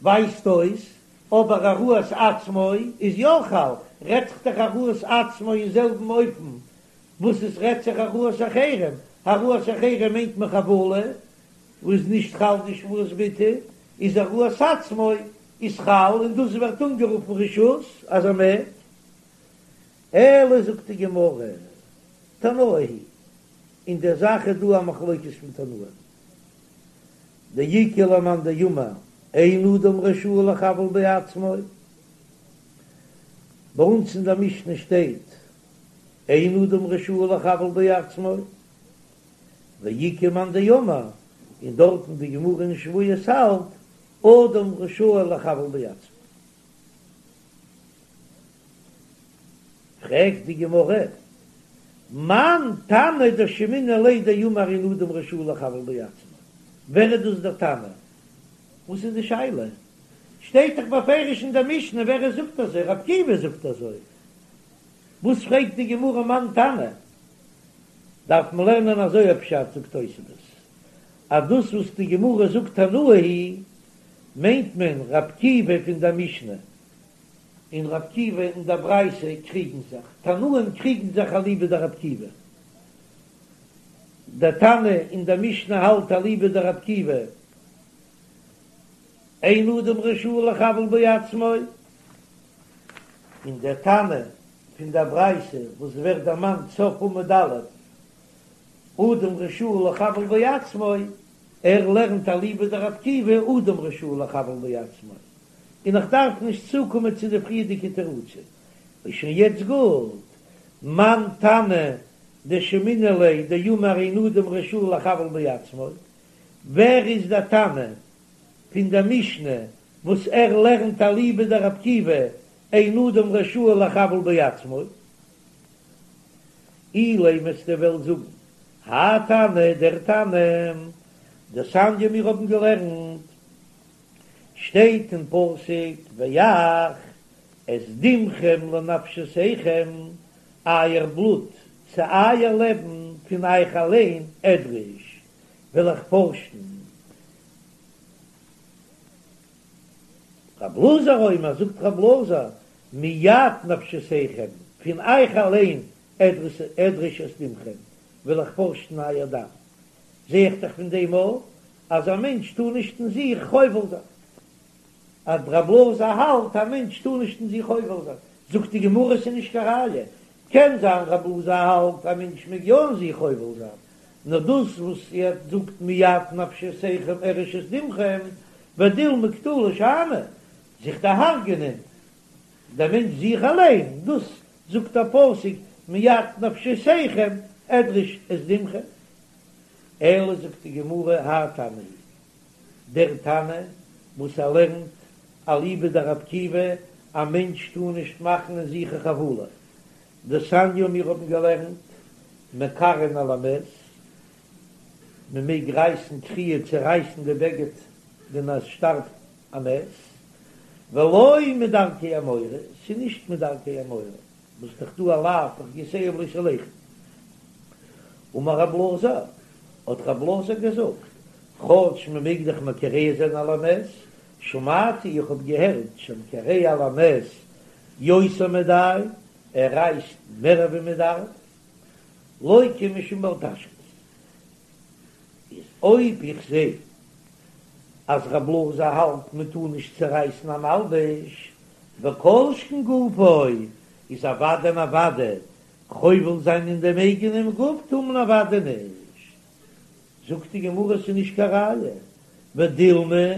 ווייזט אויס, אבער הרעת עצמו איז יא חל, רעדט זיך דאך הרעת עצמו אין זעלבן אופן וואס עס רעדט זיך הרעת אחרים, הרעת אחרים מיינט מען חבלה, וואס איז נישט חל די שבועת ביטוי, איז הרעת עצמו איז חל און דאס ווערט אנגערופן רשות אז ער מעג. אלא זאגט די גמרא, תנאי היא, אין דער זאך איז דא א מחלוקת פון תנאים, דאיכא למאן דאמר אין אדם רשאי לחבל בעצמו, ביי אונז אין דער משנה שטייט אין אדם רשאי לחבל בעצמו, ואיכא מאן דאמר, און דארטן די גמרא אין שבועות האלט אדם רשאי לחבל בעצמו. פרעגט די גמרא, מאן תנא דשמעינן ליה דאמר אין אדם רשאי לחבל בעצמו, ווער איז דאס דער תנא? וואס איז די שאלה? שטייט דאך בפירוש אין דער משנה ווער עס זאגט אזוי, רבי עקיבא זאגט אזוי, וואס פרעגט די גמרא מאן תנא? דארף מען לערנען אזוי א פשט, זאגט תוספות, אז דאס וואס די גמרא זאגט תנאי היא מיינט מען רבי עקיבא פון דער משנה און רבי עקיבא אין דער ברייתא קריגן זיך, תנאים קריגן זיך אליבא דרבי עקיבא. דער תנא אין דער משנה האלט אליבא דרבי עקיבא, אין אדם רשאי לחבל בעצמו, און דער תנא פון דער ברייתא וואס ווערט דערמאנט סוף עמוד א', אדם רשאי לחבל בעצמו, ער לערנט אליבא דרבי עקיבא אדם רשאי לחבל בעצמו, און איך דארף נישט צוקומען צו די פריערדיגע תירוצים, איז שוין יעצט גוט, מאן תנא דשמעינן ליה דאמר אין אדם רשאי לחבל בעצמו, ווער איז דער תנא פון דער משנה וואס ער לערנט אליבא דרבי עקיבא אין אדם רשאי לחבל בעצמו? אילימא וועסטו וועלן זאגן האי תנא דער תנא דתניא מיר האבן געלערנט שטייט אין פסוק ואך את דמכם לנפשותיכם אייער בלוט צו אייער לעבן פון אייך אליין אדרש וועל איך פארשן. רב אלעזר אומר, זאגט רב אלעזר, מיד נפשותיכם, פון אייך אליין אדרש את דמכם, וועל איך פארשן אייער דם. זע איך דאך פון דעם אויך אז א מענטש טאר נישט אין זיך חובל זיין. אז רב אלעזר האלט א מענטש טאר נישט אין זיך חובל זיין, זאגט די גמרא ס'איז נישט קיין ראיה, קען זיין רב אלעזר האלט א מענטש מעג יא אין זיך חובל זיין, נאר דאס וואס ער זאגט מיד נפשותיכם אדרש את דמכם, ודילמא קטלא שאני, זיך דערהרגענען דער מענטש זיך אליין, דאס זאגט דער פסוק מיד נפשותיכם אדרש את דמכם. אלא זאגט די גמרא האי תנא הוא, דער תנא וואס ער לערנט אליבא דרבי עקיבא, א מענטש טאר נישט מאכן אין זיך א חבלה, דתניא מיר האבן געלערנט מקרעין על המת, מען מעג רייסן קריעה צורייסן די בגד ווען עס שטארבט א מת, ולא מדרכי המורה, ס'איז נישט מדרכי המורה, וואס דאך דא א לאו בחוקותיהם לא תלכו. אמר רב אלעזר, האט רב אלעזר געזאגט, כאטש מען מעג דאך מקרע זיין על המת, שמעתי איך האב געהערט שהמקרע על המת יותר מדאי, ער רייסט מער ווי מען דארף, לוקה משום בל תשחית. איז אויב איך זע אז רב אלעזר האלט מען טאר נישט צורייסן א מלבוש, וכל שכן גופו, איז אוודאי און אוודאי חובל זיין אין דעם אייגענעם גוף טאר מען אוודאי נישט. זאגט די גמרא ס'איז נישט קיין ראיה, ודילמא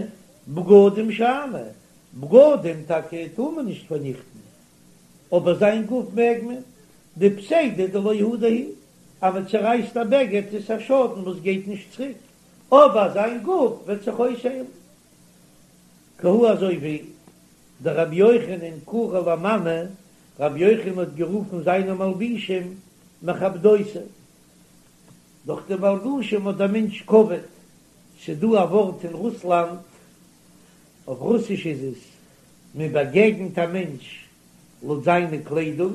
בגדים שאני, בגדים טאקע טאר מען נישט פארניכטן, אבער זיין גוף מעג מען, דפסידא דלא הדר הוא, אז מען צערייסט א בגד איז א שאדן וואס גייט נישט צוריק, אבער זיין גוף וועט זיך אויסהיילן. כי הא אזוי ווי דרבי יוחנן קרי למאני, רבי יוחנן האט גערופן זיינע מלבישים מכבדותי, דורך די מלבושים האט דער מענטש כבוד, ס'דא א ווארט אין רוסלאנד, אויף רוסיש איז עס, מען באגעגנט א מענטש לויט זיינע קליידונג,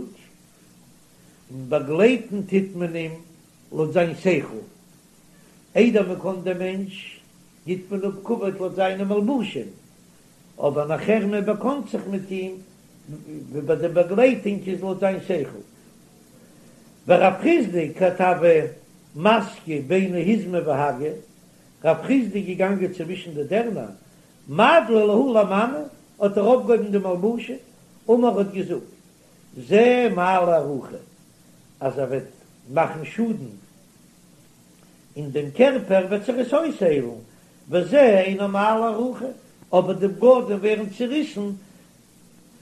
און באגלייטן טוט מען אים לויט זיין שכל. איידער מען קען דעם מענטש, גיט מען אפ כבוד לויט זיינע מלבושים, אבער נאכער מען באקאנט זיך מיט אים, ווי ביי די באגלייטונג איז לויט זיין שכל. ורב חסדא כי הוה מסקי ביני היזמי והגי, רב חסדא איז געגאנגען צווישן די דערנער, מדלי להו למאני, האט ער אויפגעהויבן די מלבושים, אמר האט געזאגט, זה מעלה ארוכה, אז ער וועט מאכן שאדן אין דעם קערפער וועט זיך עס אויסהיילן, וזה אינו מעלה ארוכה, אבער די בגדים ווערן צוריסן,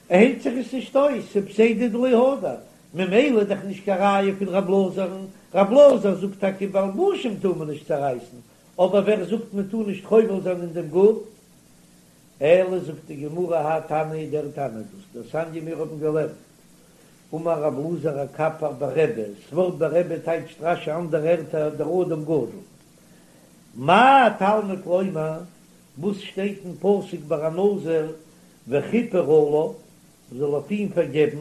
היילט זיך עס נישט אויס, ס'איז פסידא דלא הדר, ממילא איז דאך נישט קיין ראיה פון רב אלעזר'ן, רב אלעזר זאגט טאקע מלבושים טאר מען נישט צערייסן, אבער ווער זאגט מען טאר נישט חובל זיין אין דעם גוף? אלא זאגט די גמרא האי תנא דער תנא דאס דתניא מיר האבן געלערנט אמר רב אלעזר הקפר ברבי, ס'ווארט ברבי טייטשט רש"י אנדערע ערטער דער אדם גדול. מה תלמוד לומר, וואס שטייט אין פסוק ביי א נזיר וכיפר עליו, מ'זאל אויף אים פארגעבן,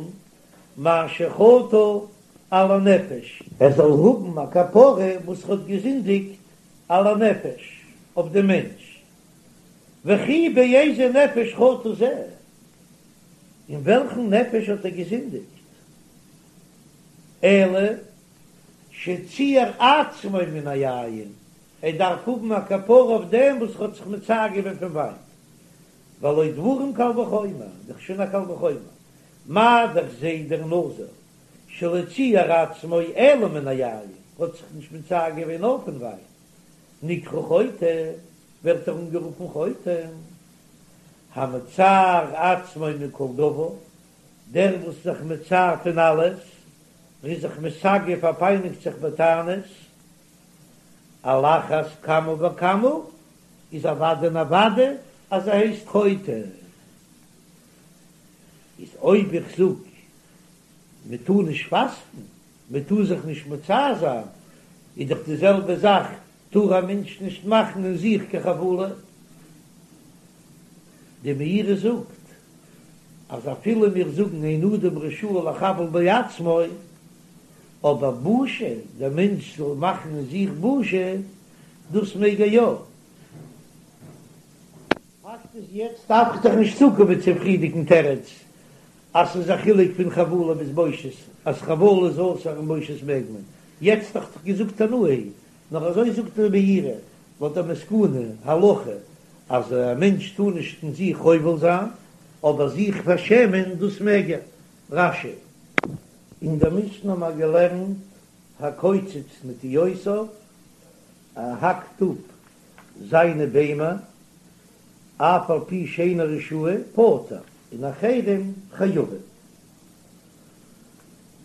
מאשר חטא על הנפש. ער זאל האבן א כפרה וואס ער האט געזינדיגט על הנפש, אויף דעם מענטש. וכי באיזה נפש חטא זה, אין וועלכן נפש האט ער געזינדיגט? אלא. שציער עצמו מן היין, ער דארף האבן א כפרה אויף דעם וואס ער האט זיך מצער געווען פון וויין, והלא דברים קל וחומר, דאך שוין א קל וחומר, מה דאך זה דער נזיר שלא ציער עצמו אלא מן היין, האט זיך נישט מצער געווען נאר פון וויין, נקרא חוטא, ווערט ער אנגערופן חוטא, המצער עצמו מכל דבר, דער וואס איז זיך מצער פון אלעס, ער איז זיך מסגף ער פייניגט זיך בתענית, על אחת כמה וכמה איז אוודאי און אוודאי אז ער הייסט חוטא. איז אויב איך זאג מען טאר נישט פאסטן, מען טאר זיך נישט מצער זיין, איז דאך די זעלבע זאך טאר א מענטש נישט מאכן אין זיך קיין חבלה. די מאירי זאגט אז אפילו מיר זאגן אין אדם רשאי לחבל בעצמו, אבער בושה, דער מענטש זאל מאכן אין זיך בושה, דאס מעג ער יא. פאקט איז יעצט דארף איך דאך נישט צוקומען צום פריערדיגן תירוץ אז ס'איז א חילוק פון חבלה ביז בושת, אז חבלה איז אסור און בושת מעג מען, יעצט האב איך דאך געזאגט תנאי היא, נאר אזוי זאגט דער מאירי לויט די מסקנא הלכה אז א מענטש טאר נישט אין זיך חובל זיין, אבער זיך פארשעמען דאס מעג ער. רש"י. אין דער משנה האבן מיר געלערנט הקוצץ נטיעותיו, ער האקט אפ זיינע ביימער, אף על פי שאינו רשאי, פטור, און אחרים חייבים.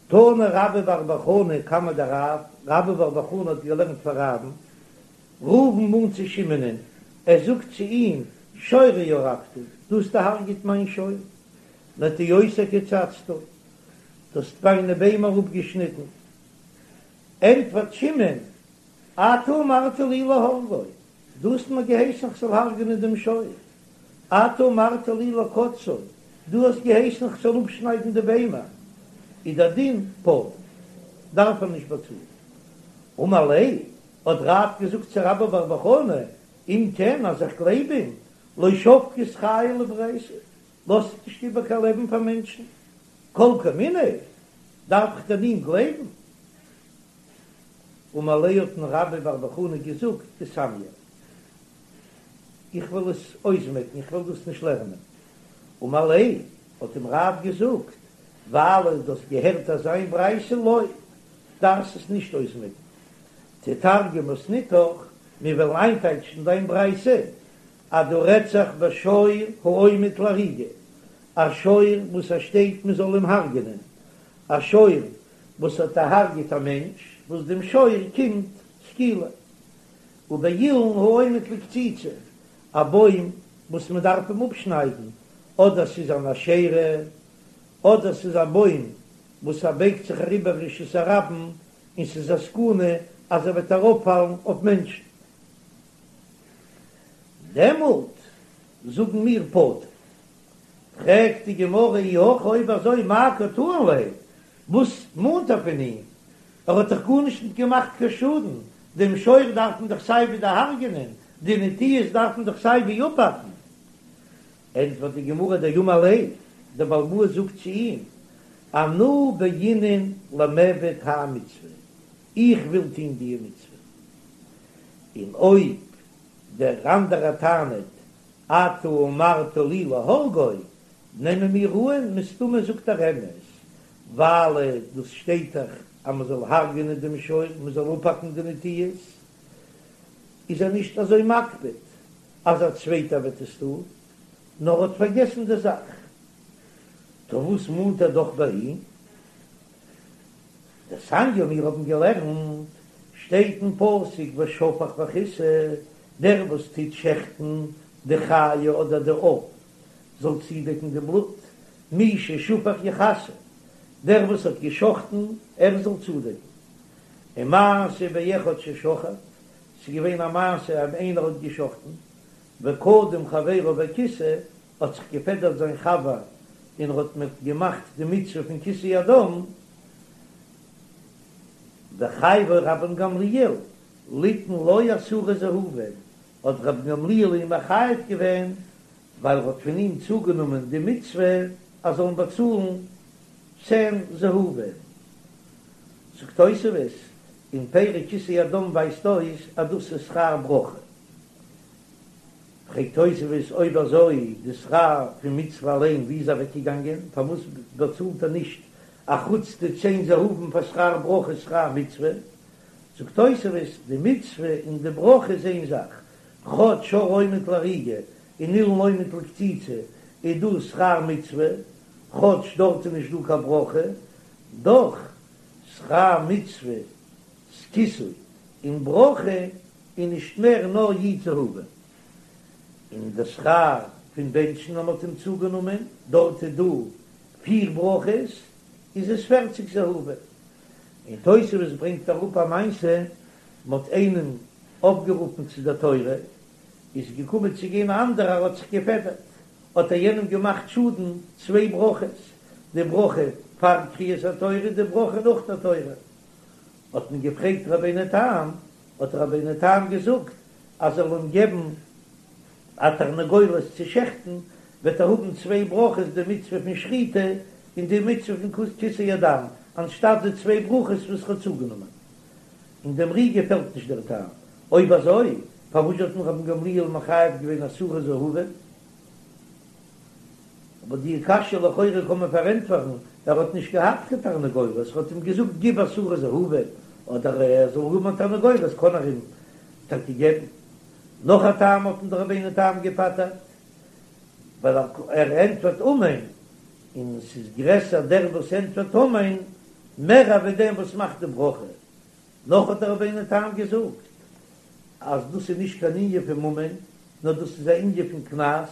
תנא רבה בר בר חנה קמיה דרב, רבה בר בר חנה האט געלערנט פאר רב'ן, ראובן מאנט צו שמעונ'ען, ער זאגט צו אים, שורי הרגת, דו האסט דערהרגעט מיין שור, נטיעותי קצצת, דו האסט מיינע ביימער אפגעשניטן. ענטפערט שמעון, אתה אמרת לי להרגו, דו האסט מיר געהייסן כ'זאל הרג'נען דעם שור, אתה אמרת לי לקוצצו, דו האסט געהייסן כ'זאל אפשניידן די ביימער, איז דער דין פטור, דארף ער נישט באצאלן. אמר ליה, האט רב געזאגט צו רבה בר בר חנה, אם כן אז איך גלייב אים, לא שבקת חיי לברייתא, לאזט נישט איבער קיין לעבן פאר מענטשן, כל כמיניה, דארף איך דען אים גלייבן? אמר ליה האט אים רבה בר בר חנה געזאגט איסמיא, איך וועל עס אויסמעקן, איך וועל דאס נישט לערנען. אמר ליה האט אים רב געזאגט, ווייל דו האסט געהערט אזא איין ברייתא לא, דארפסט עס נישט אויסמעקן. תתרגם מתניתך, מיר וועלן איינטייטשן דיין ברייתא, אז דא רעדט זיך בשור העומד להריגה, א שור וואס עס שטייט מען זאל אים הרג'נען, א שור וואס האט דערהרגעט א מענטש, וואס דעם שור קומט סקילה, ובאילן העומד לקציצה, א בוים וואס מען דארף אים אפשניידן, אדער ס'איז אן אשרה, אדער ס'איז א בוים וואס ער בייגט זיך אריבער רשות הרבים און ס'איז א סכנה אז ער וועט אראפפאלן אויף מענטשן. דעמאלט זאגן מיר פטור. פרעגט די גמרא אי הכי אויב אזוי מאי קא טעין ליה, וואס מאנט ער פון אים? ער האט דאך גארנישט ניט געמאכט קיין שאדן, דעם שור דארף מען דאך סיי ווי דערהרגענען, די נטיעות דארף מען דאך סיי ווי אפהאקן. ענטפערט די גמרא דאמר ליה, דער בעל הבית זאגט צו אים, אנא בעינא למיעבד האי מצוה, איך וויל טון די מצוה, און אויב דער אנדערער טענה'ט אתה אמרת לי להרגו, נעמען מיר אן, מסתמא זאגט ער אמת, ווייל דאס שטייט דאך אז מען זאל הרג'נען דעם שור, מען זאל אפהאקן די נטיעות, איז ער נישט אזוי מקפיד אז א צווייטער וועט עס טון, נאר האט פארגעסן די זאך. טא וואס מאנט ער דאך ביי אים? דתניא מיר האבן געלערנט, שטייט אין פסוק ושפך וכסה, דער וואס טוט שעכטן די חיה אדער די עוף זאל צודעקן די בלוט, מי ששפך יכסה, דער וואס האט געשחטן ער זאל צודעקן. ומעשה באחד ששחט, ס'איז געווען א מעשה אז איינער האט געשחטן, וקדם חברו וכיסה, האט זיך געפעדערט זיין חבר און ער האט מיט געמאכט די מצוה פון כיסוי הדם, וחייבו רבן גמליאל ליתן לו עשרה זהובים, האט רבן גמליאל אים מחייב געווען ווייל ער האט פון אים צוגענומען די מצוה אז זאלן באצאלן צען זהובים. זאגט תוספות. און פרי כיסוי הדם ווייזט אויס אז דאס איז שכר ברכה. פרעגט תוספות אויב אזוי די שכר פון מצוה אליין ווי איז אוועקגעגאנגען פארוואס באצאלט ער נישט אחוץ די צען זהובים פאר שכר ברכה שכר מצוה? זאגט תוספות די מצוה און די ברכה איז איין זאך, כאטש שור העומד להריגה און אילן העומד לקציצה איז דא שכר מצוה, כאטש דארט איז נישט דא קיין ברכה, דאך שכר מצות כיסוי און ברכה איז נישט מער נאר י' זהובים. און די שכר פון בענטשן אז מ'האט אים צוגענומען, דארט איז דא פיר ברכות, איז עס פערציג זהובים. און תוספות ברענגט אראפ א מעשה, מ'האט איינעם אויפגערופן צו דער תורה, איז געקומען צו גיין א אנדערער האט זיך געפעדערט, האט ער יענעם געמאכט שאדן צוויי ברכות, די ברכה פאר קריאת התורה און די ברכה נאך דער תורה. האט מען געפרעגט רבינו תם, האט רבינו תם געזאגט אז ער זאל אים געבן א תרנגולת צו שעכטן, וועט ער האבן צוויי ברכות די מצוה פון שחיטה און די מצוה פון כיסוי הדם, אנשטאט די צוויי ברכות וואס ער האט צוגענומען. און דעם ר"י געפעלט נישט דער טעם. אויב אזוי, פארוואס האט מען רבן גמליאל מחייב געווען עשרה זהובים? אבער די קשיא לכאורה קען מען פארענטפערן, ער האט נישט געהאט קיין תרנגולת, ער האט אים געזאגט גיב עשרה זהובים, אדער ער זאל האבן א תרנגולת קען ער אים טאקע געבן. נאך א טעם האט אים דער רבינו תם געפטר'ט, ווייל ער ענטפערט אמן, און ס'איז גרעסער דער וואס ענטפערט אמן מער ווי דעם וואס מאכט די ברכה. נאך האט דער רבינו תם געזאגט אז דאס איז נישט קיין ענין פון ממון, נאר דאס איז א ענין פון קנס,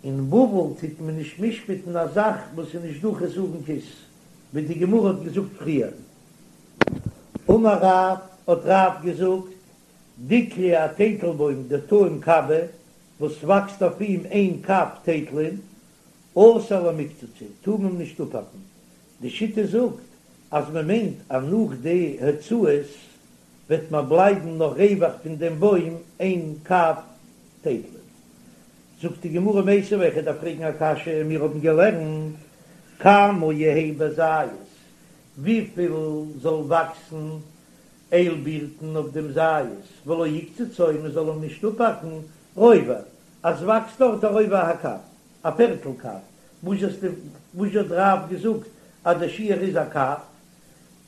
אין בבל טוט מען נישט משפט'ן א זאך וואס איז נישט דא חסרון כיס, ווי די גמרא האט געזאגט פריער. אמר רב, האט רב געזאגט, דיקלא א טייטלבוים דטעים קבא, וואס וואקסט אויף אים איין קב טייטלען, אסור למיקצצא, טאר מען נישט אפהאקן. די שיטה זאגט אז מען מיינט אז נאך די הוצאות וועט מען בלייבן נאך רווח פון דעם בוים איין קב טייטלען. זאגט די גמרא מיתיבי, איך דארף פרעגן א קשיא, מיר האבן געלערנט כמה יהא בזית, וויפיל זאל וואקסן איילבירטן אויף דעם זית, ולא יקצצו, מען זאל אים נישט אפהאקן, רובע, אז וואקסט דארט א רובע הקב, א פערטל קב, וואס וואס האט רב געזאגט אז דער שיעור איז א קב?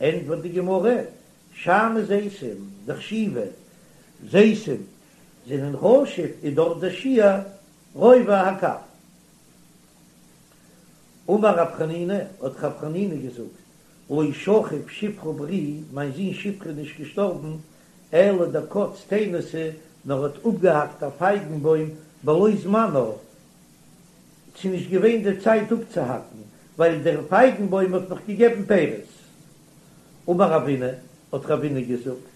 ענטפערט די גמרא, שאני זיתים דחשיבי, זיתים זענען חשוב איז דארט דער שיעור רובע הקב. אמר רב חנינא, האט רב חנינא געזאגט, לא שכיב שפרא ברי, מיין זון שפרא איז נישט געשטארבן, אלא דקץ תאינתא, נאר האט אפגעהאקט א פייגן בוים בלא זמנה, ס'איז נישט געווען די צייט אפצוהאקן, ווייל דער פייגן בוים האט נאך געגעבן פירות. אמר רבינא, האט רבינא געזאגט,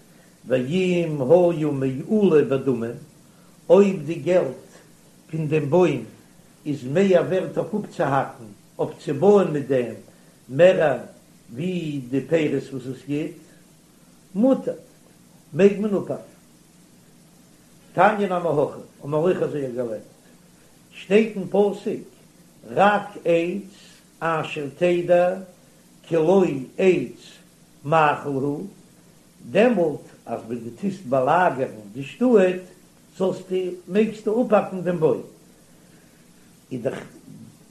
ואם היה מעולה בדמים, אויב די געלט פון דעם בוים איז מער ווערט אויף אפצוהאקן, אויף צו בויען מיט דעם, מער ווי די פירות וואס עס גיט, מותר, מעג מען אפהאקן. תניא נמי הכי, האבן מיר אויך אזוי געלערנט, שטייט אין פסוק, רק עץ אשר תדע כי לא עץ מאכל הוא, דעמאלט אז ווען דו טוסט באלאגערן די שטאט, זאלסטו, מעגסטו אפהאקן דעם בוים. איז דאך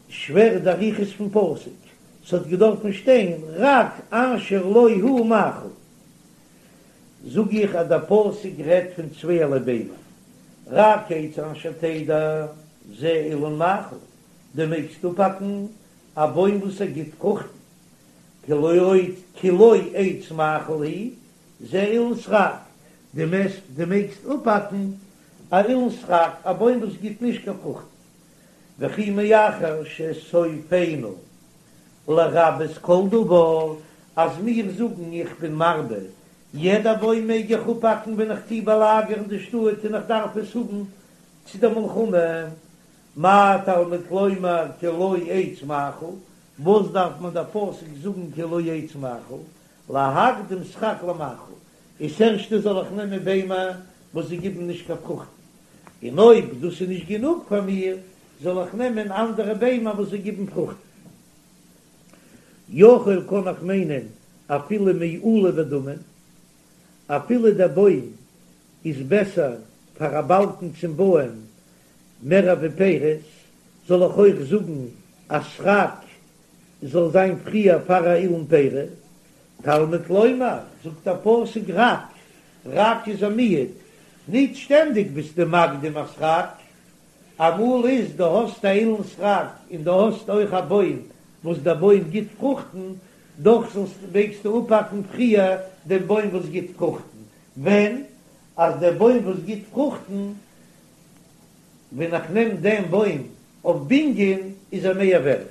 שווער די אריכות פון פסוק, ס'האט געדארפן שטיין רק אשר לא הוא מאכל. זאג איך אז דער פסוק רעדט פון צווייערליי ביימער, רק עץ אשר תדע זה אילן מאכל, דו מעגסט אפהאקן א בוים וואס ער גיט פרוכטן, כי לא כי לא עץ מאכל הוא, זה אילן סרק, דו דו מעגסט אפהאקן א אילן סרק, א בוים וואס גיט נישט קיין פרוכטן, וכי מאחר שסופינו לרבות כל דבר, אז מיר זאגן איך בין מרבה, יעדע בוים מעג איך אפהאקן ווען איך טוה באלאגערן די שטאט און איך דארף עס האבן צו דער מלחמה, מה תלמוד לומר כי לא עץ מאכל, וואס דארף מען דער פסוק זאגן כי לא עץ מאכל, להקדים סרק למאכל, איז ערשטע זאל איך נעמען ביימער וואס זיי גיבן נישט קיין פרוכטן, און אויב דאס איז נישט גענוג פאר מיר, זאל איך נעמען אנדערע ביימער וואס זיי גיבן פרוכטן. יכול קען איך מיינען. אפילו מעולה בדמים, אפילו דער בוים איז בעסער פאר א באלקן צום בויען מער ווי פירות, זאל איך אויך זאגן אז סרק זאל זיין פריער פאר א אילן פרי? תלמוד לומר, זאגט דער פסוק רק, רק איז א מיעוט, ניט שטענדיג ביסטו מקדים א סרק, אמאל איז דו האסט א אילן סרק און דו האסט אויך א בוים וואס דער בוים גיט פרוכטן, דאך זאלסט מעגסטו אפהאקן פריער דעם בוים וואס גיט פרוכטן, ווען אז דער בוים וואס גיט פרוכטן, ווען איך נעם דעם בוים אויף בנין איז ער מער ווערט.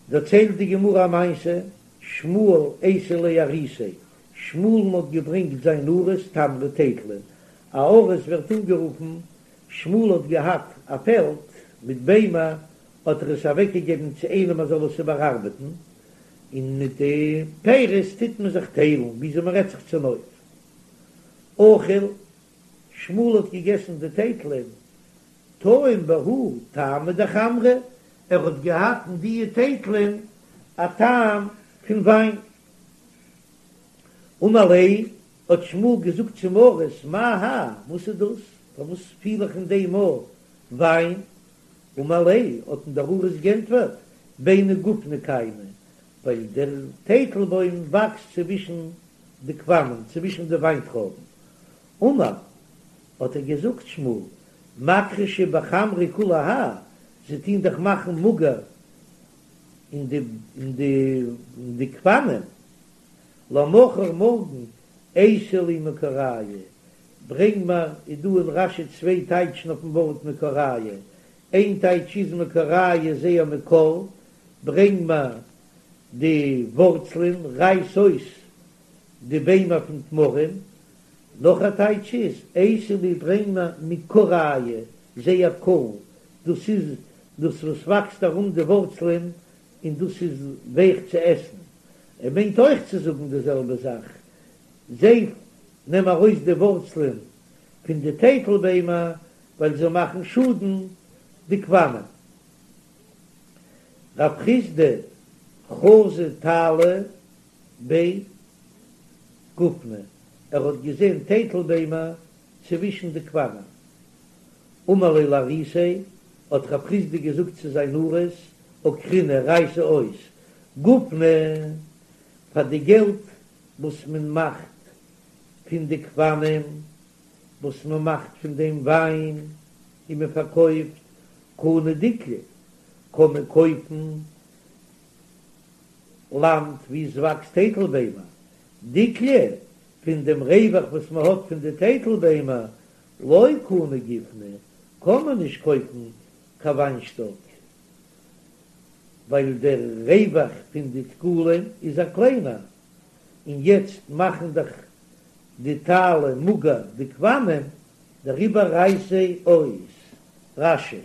דערציילט די גמרא א מעשה, שמואל אייתי ליה אריסיה, שמואל'ן האט געברענגט זיין אריס תמרי טייטלען, א אריס ווערט אנגערופן, שמואל האט געהאט א פעלד מיט ביימער, האט ער עס אוועקגעגעבן צו איינעם ער זאל עס איבערארבעטן, און מיט די פירות טוט מען זיך טיילן, וויאזוי מען רעדט זיך צונויף. אכיל, שמואל האט געגעסן די טייטלען, טעים בהו טעמא דחמרא, ער האט געהאט אין דיע טייטלען א טעם פון וויין. אמר ליה, האט שמואל געזאגט צום אריס, מאי האי, וואס איז דאס, פארוואס פיל איך אין דעם א וויין? אמר ליה, האט אים דער אריס גענטפערט, ביני גופני קיימא, ווייל דער טייטלבוים וואקסט צווישן די גפנים, צווישן די וויינטרויבן. אמר, האט ער געזאגט, שמואל, מכחשי בחמרא כולי האי, זיי טוהן דאך מאכן מאגער אין די אין די אין די גפנים, למחר מארגן אייתי לי מכורייהו, ברענג מיר, איז דא אין רש"י צוויי טייטשן אויפן ווארט מכורייהו, איין טייטש איז מכורייהו זייער מקור, ברענג מיר די ווארצלען, רייס אויס די ביימער פון תמרים, נאך א טייטש איז, אייתי לי ברענג מיר מכורייהו, זייער קור, דאס איז דאס וואס וואקסט ארום די ווארצלען און דאס איז ווייך צו עסן. ער מיינט אויך צו זאגן די זעלבע זאך, זיי נעם ארויס די ווארצלען פון די טייטל ביימער ווייל זיי מאכן שאדן די גפנים. רב חסדא חזא תאלי בי גופני, ער האט געזען טייטל ביימער צווישן די גפנים. אמר ליה לאריסיה, האט רב חסדא געזאגט צו זיין אריס, עקרינהו רייס אויס גופני פאר די געלט וואס מען מאכט פון די גפנים, וואס מען מאכט פון דעם וויין און מען פארקויפט, קני דקלי, קען מען קויפן לאנד וואו עס וואקסט טייטל ביימער, דקלי, פון דעם רווח וואס מען האט פון די טייטל ביימער, לא קני גופני, קען מען נישט קויפן קיין וויינשטאק, ווייל דער רווח פון די דקלים איז א קליינער, און יעצט מאכן דאך די תאלי מאגער די גפנים, דעריבער רייס זיי אויס. רש"י.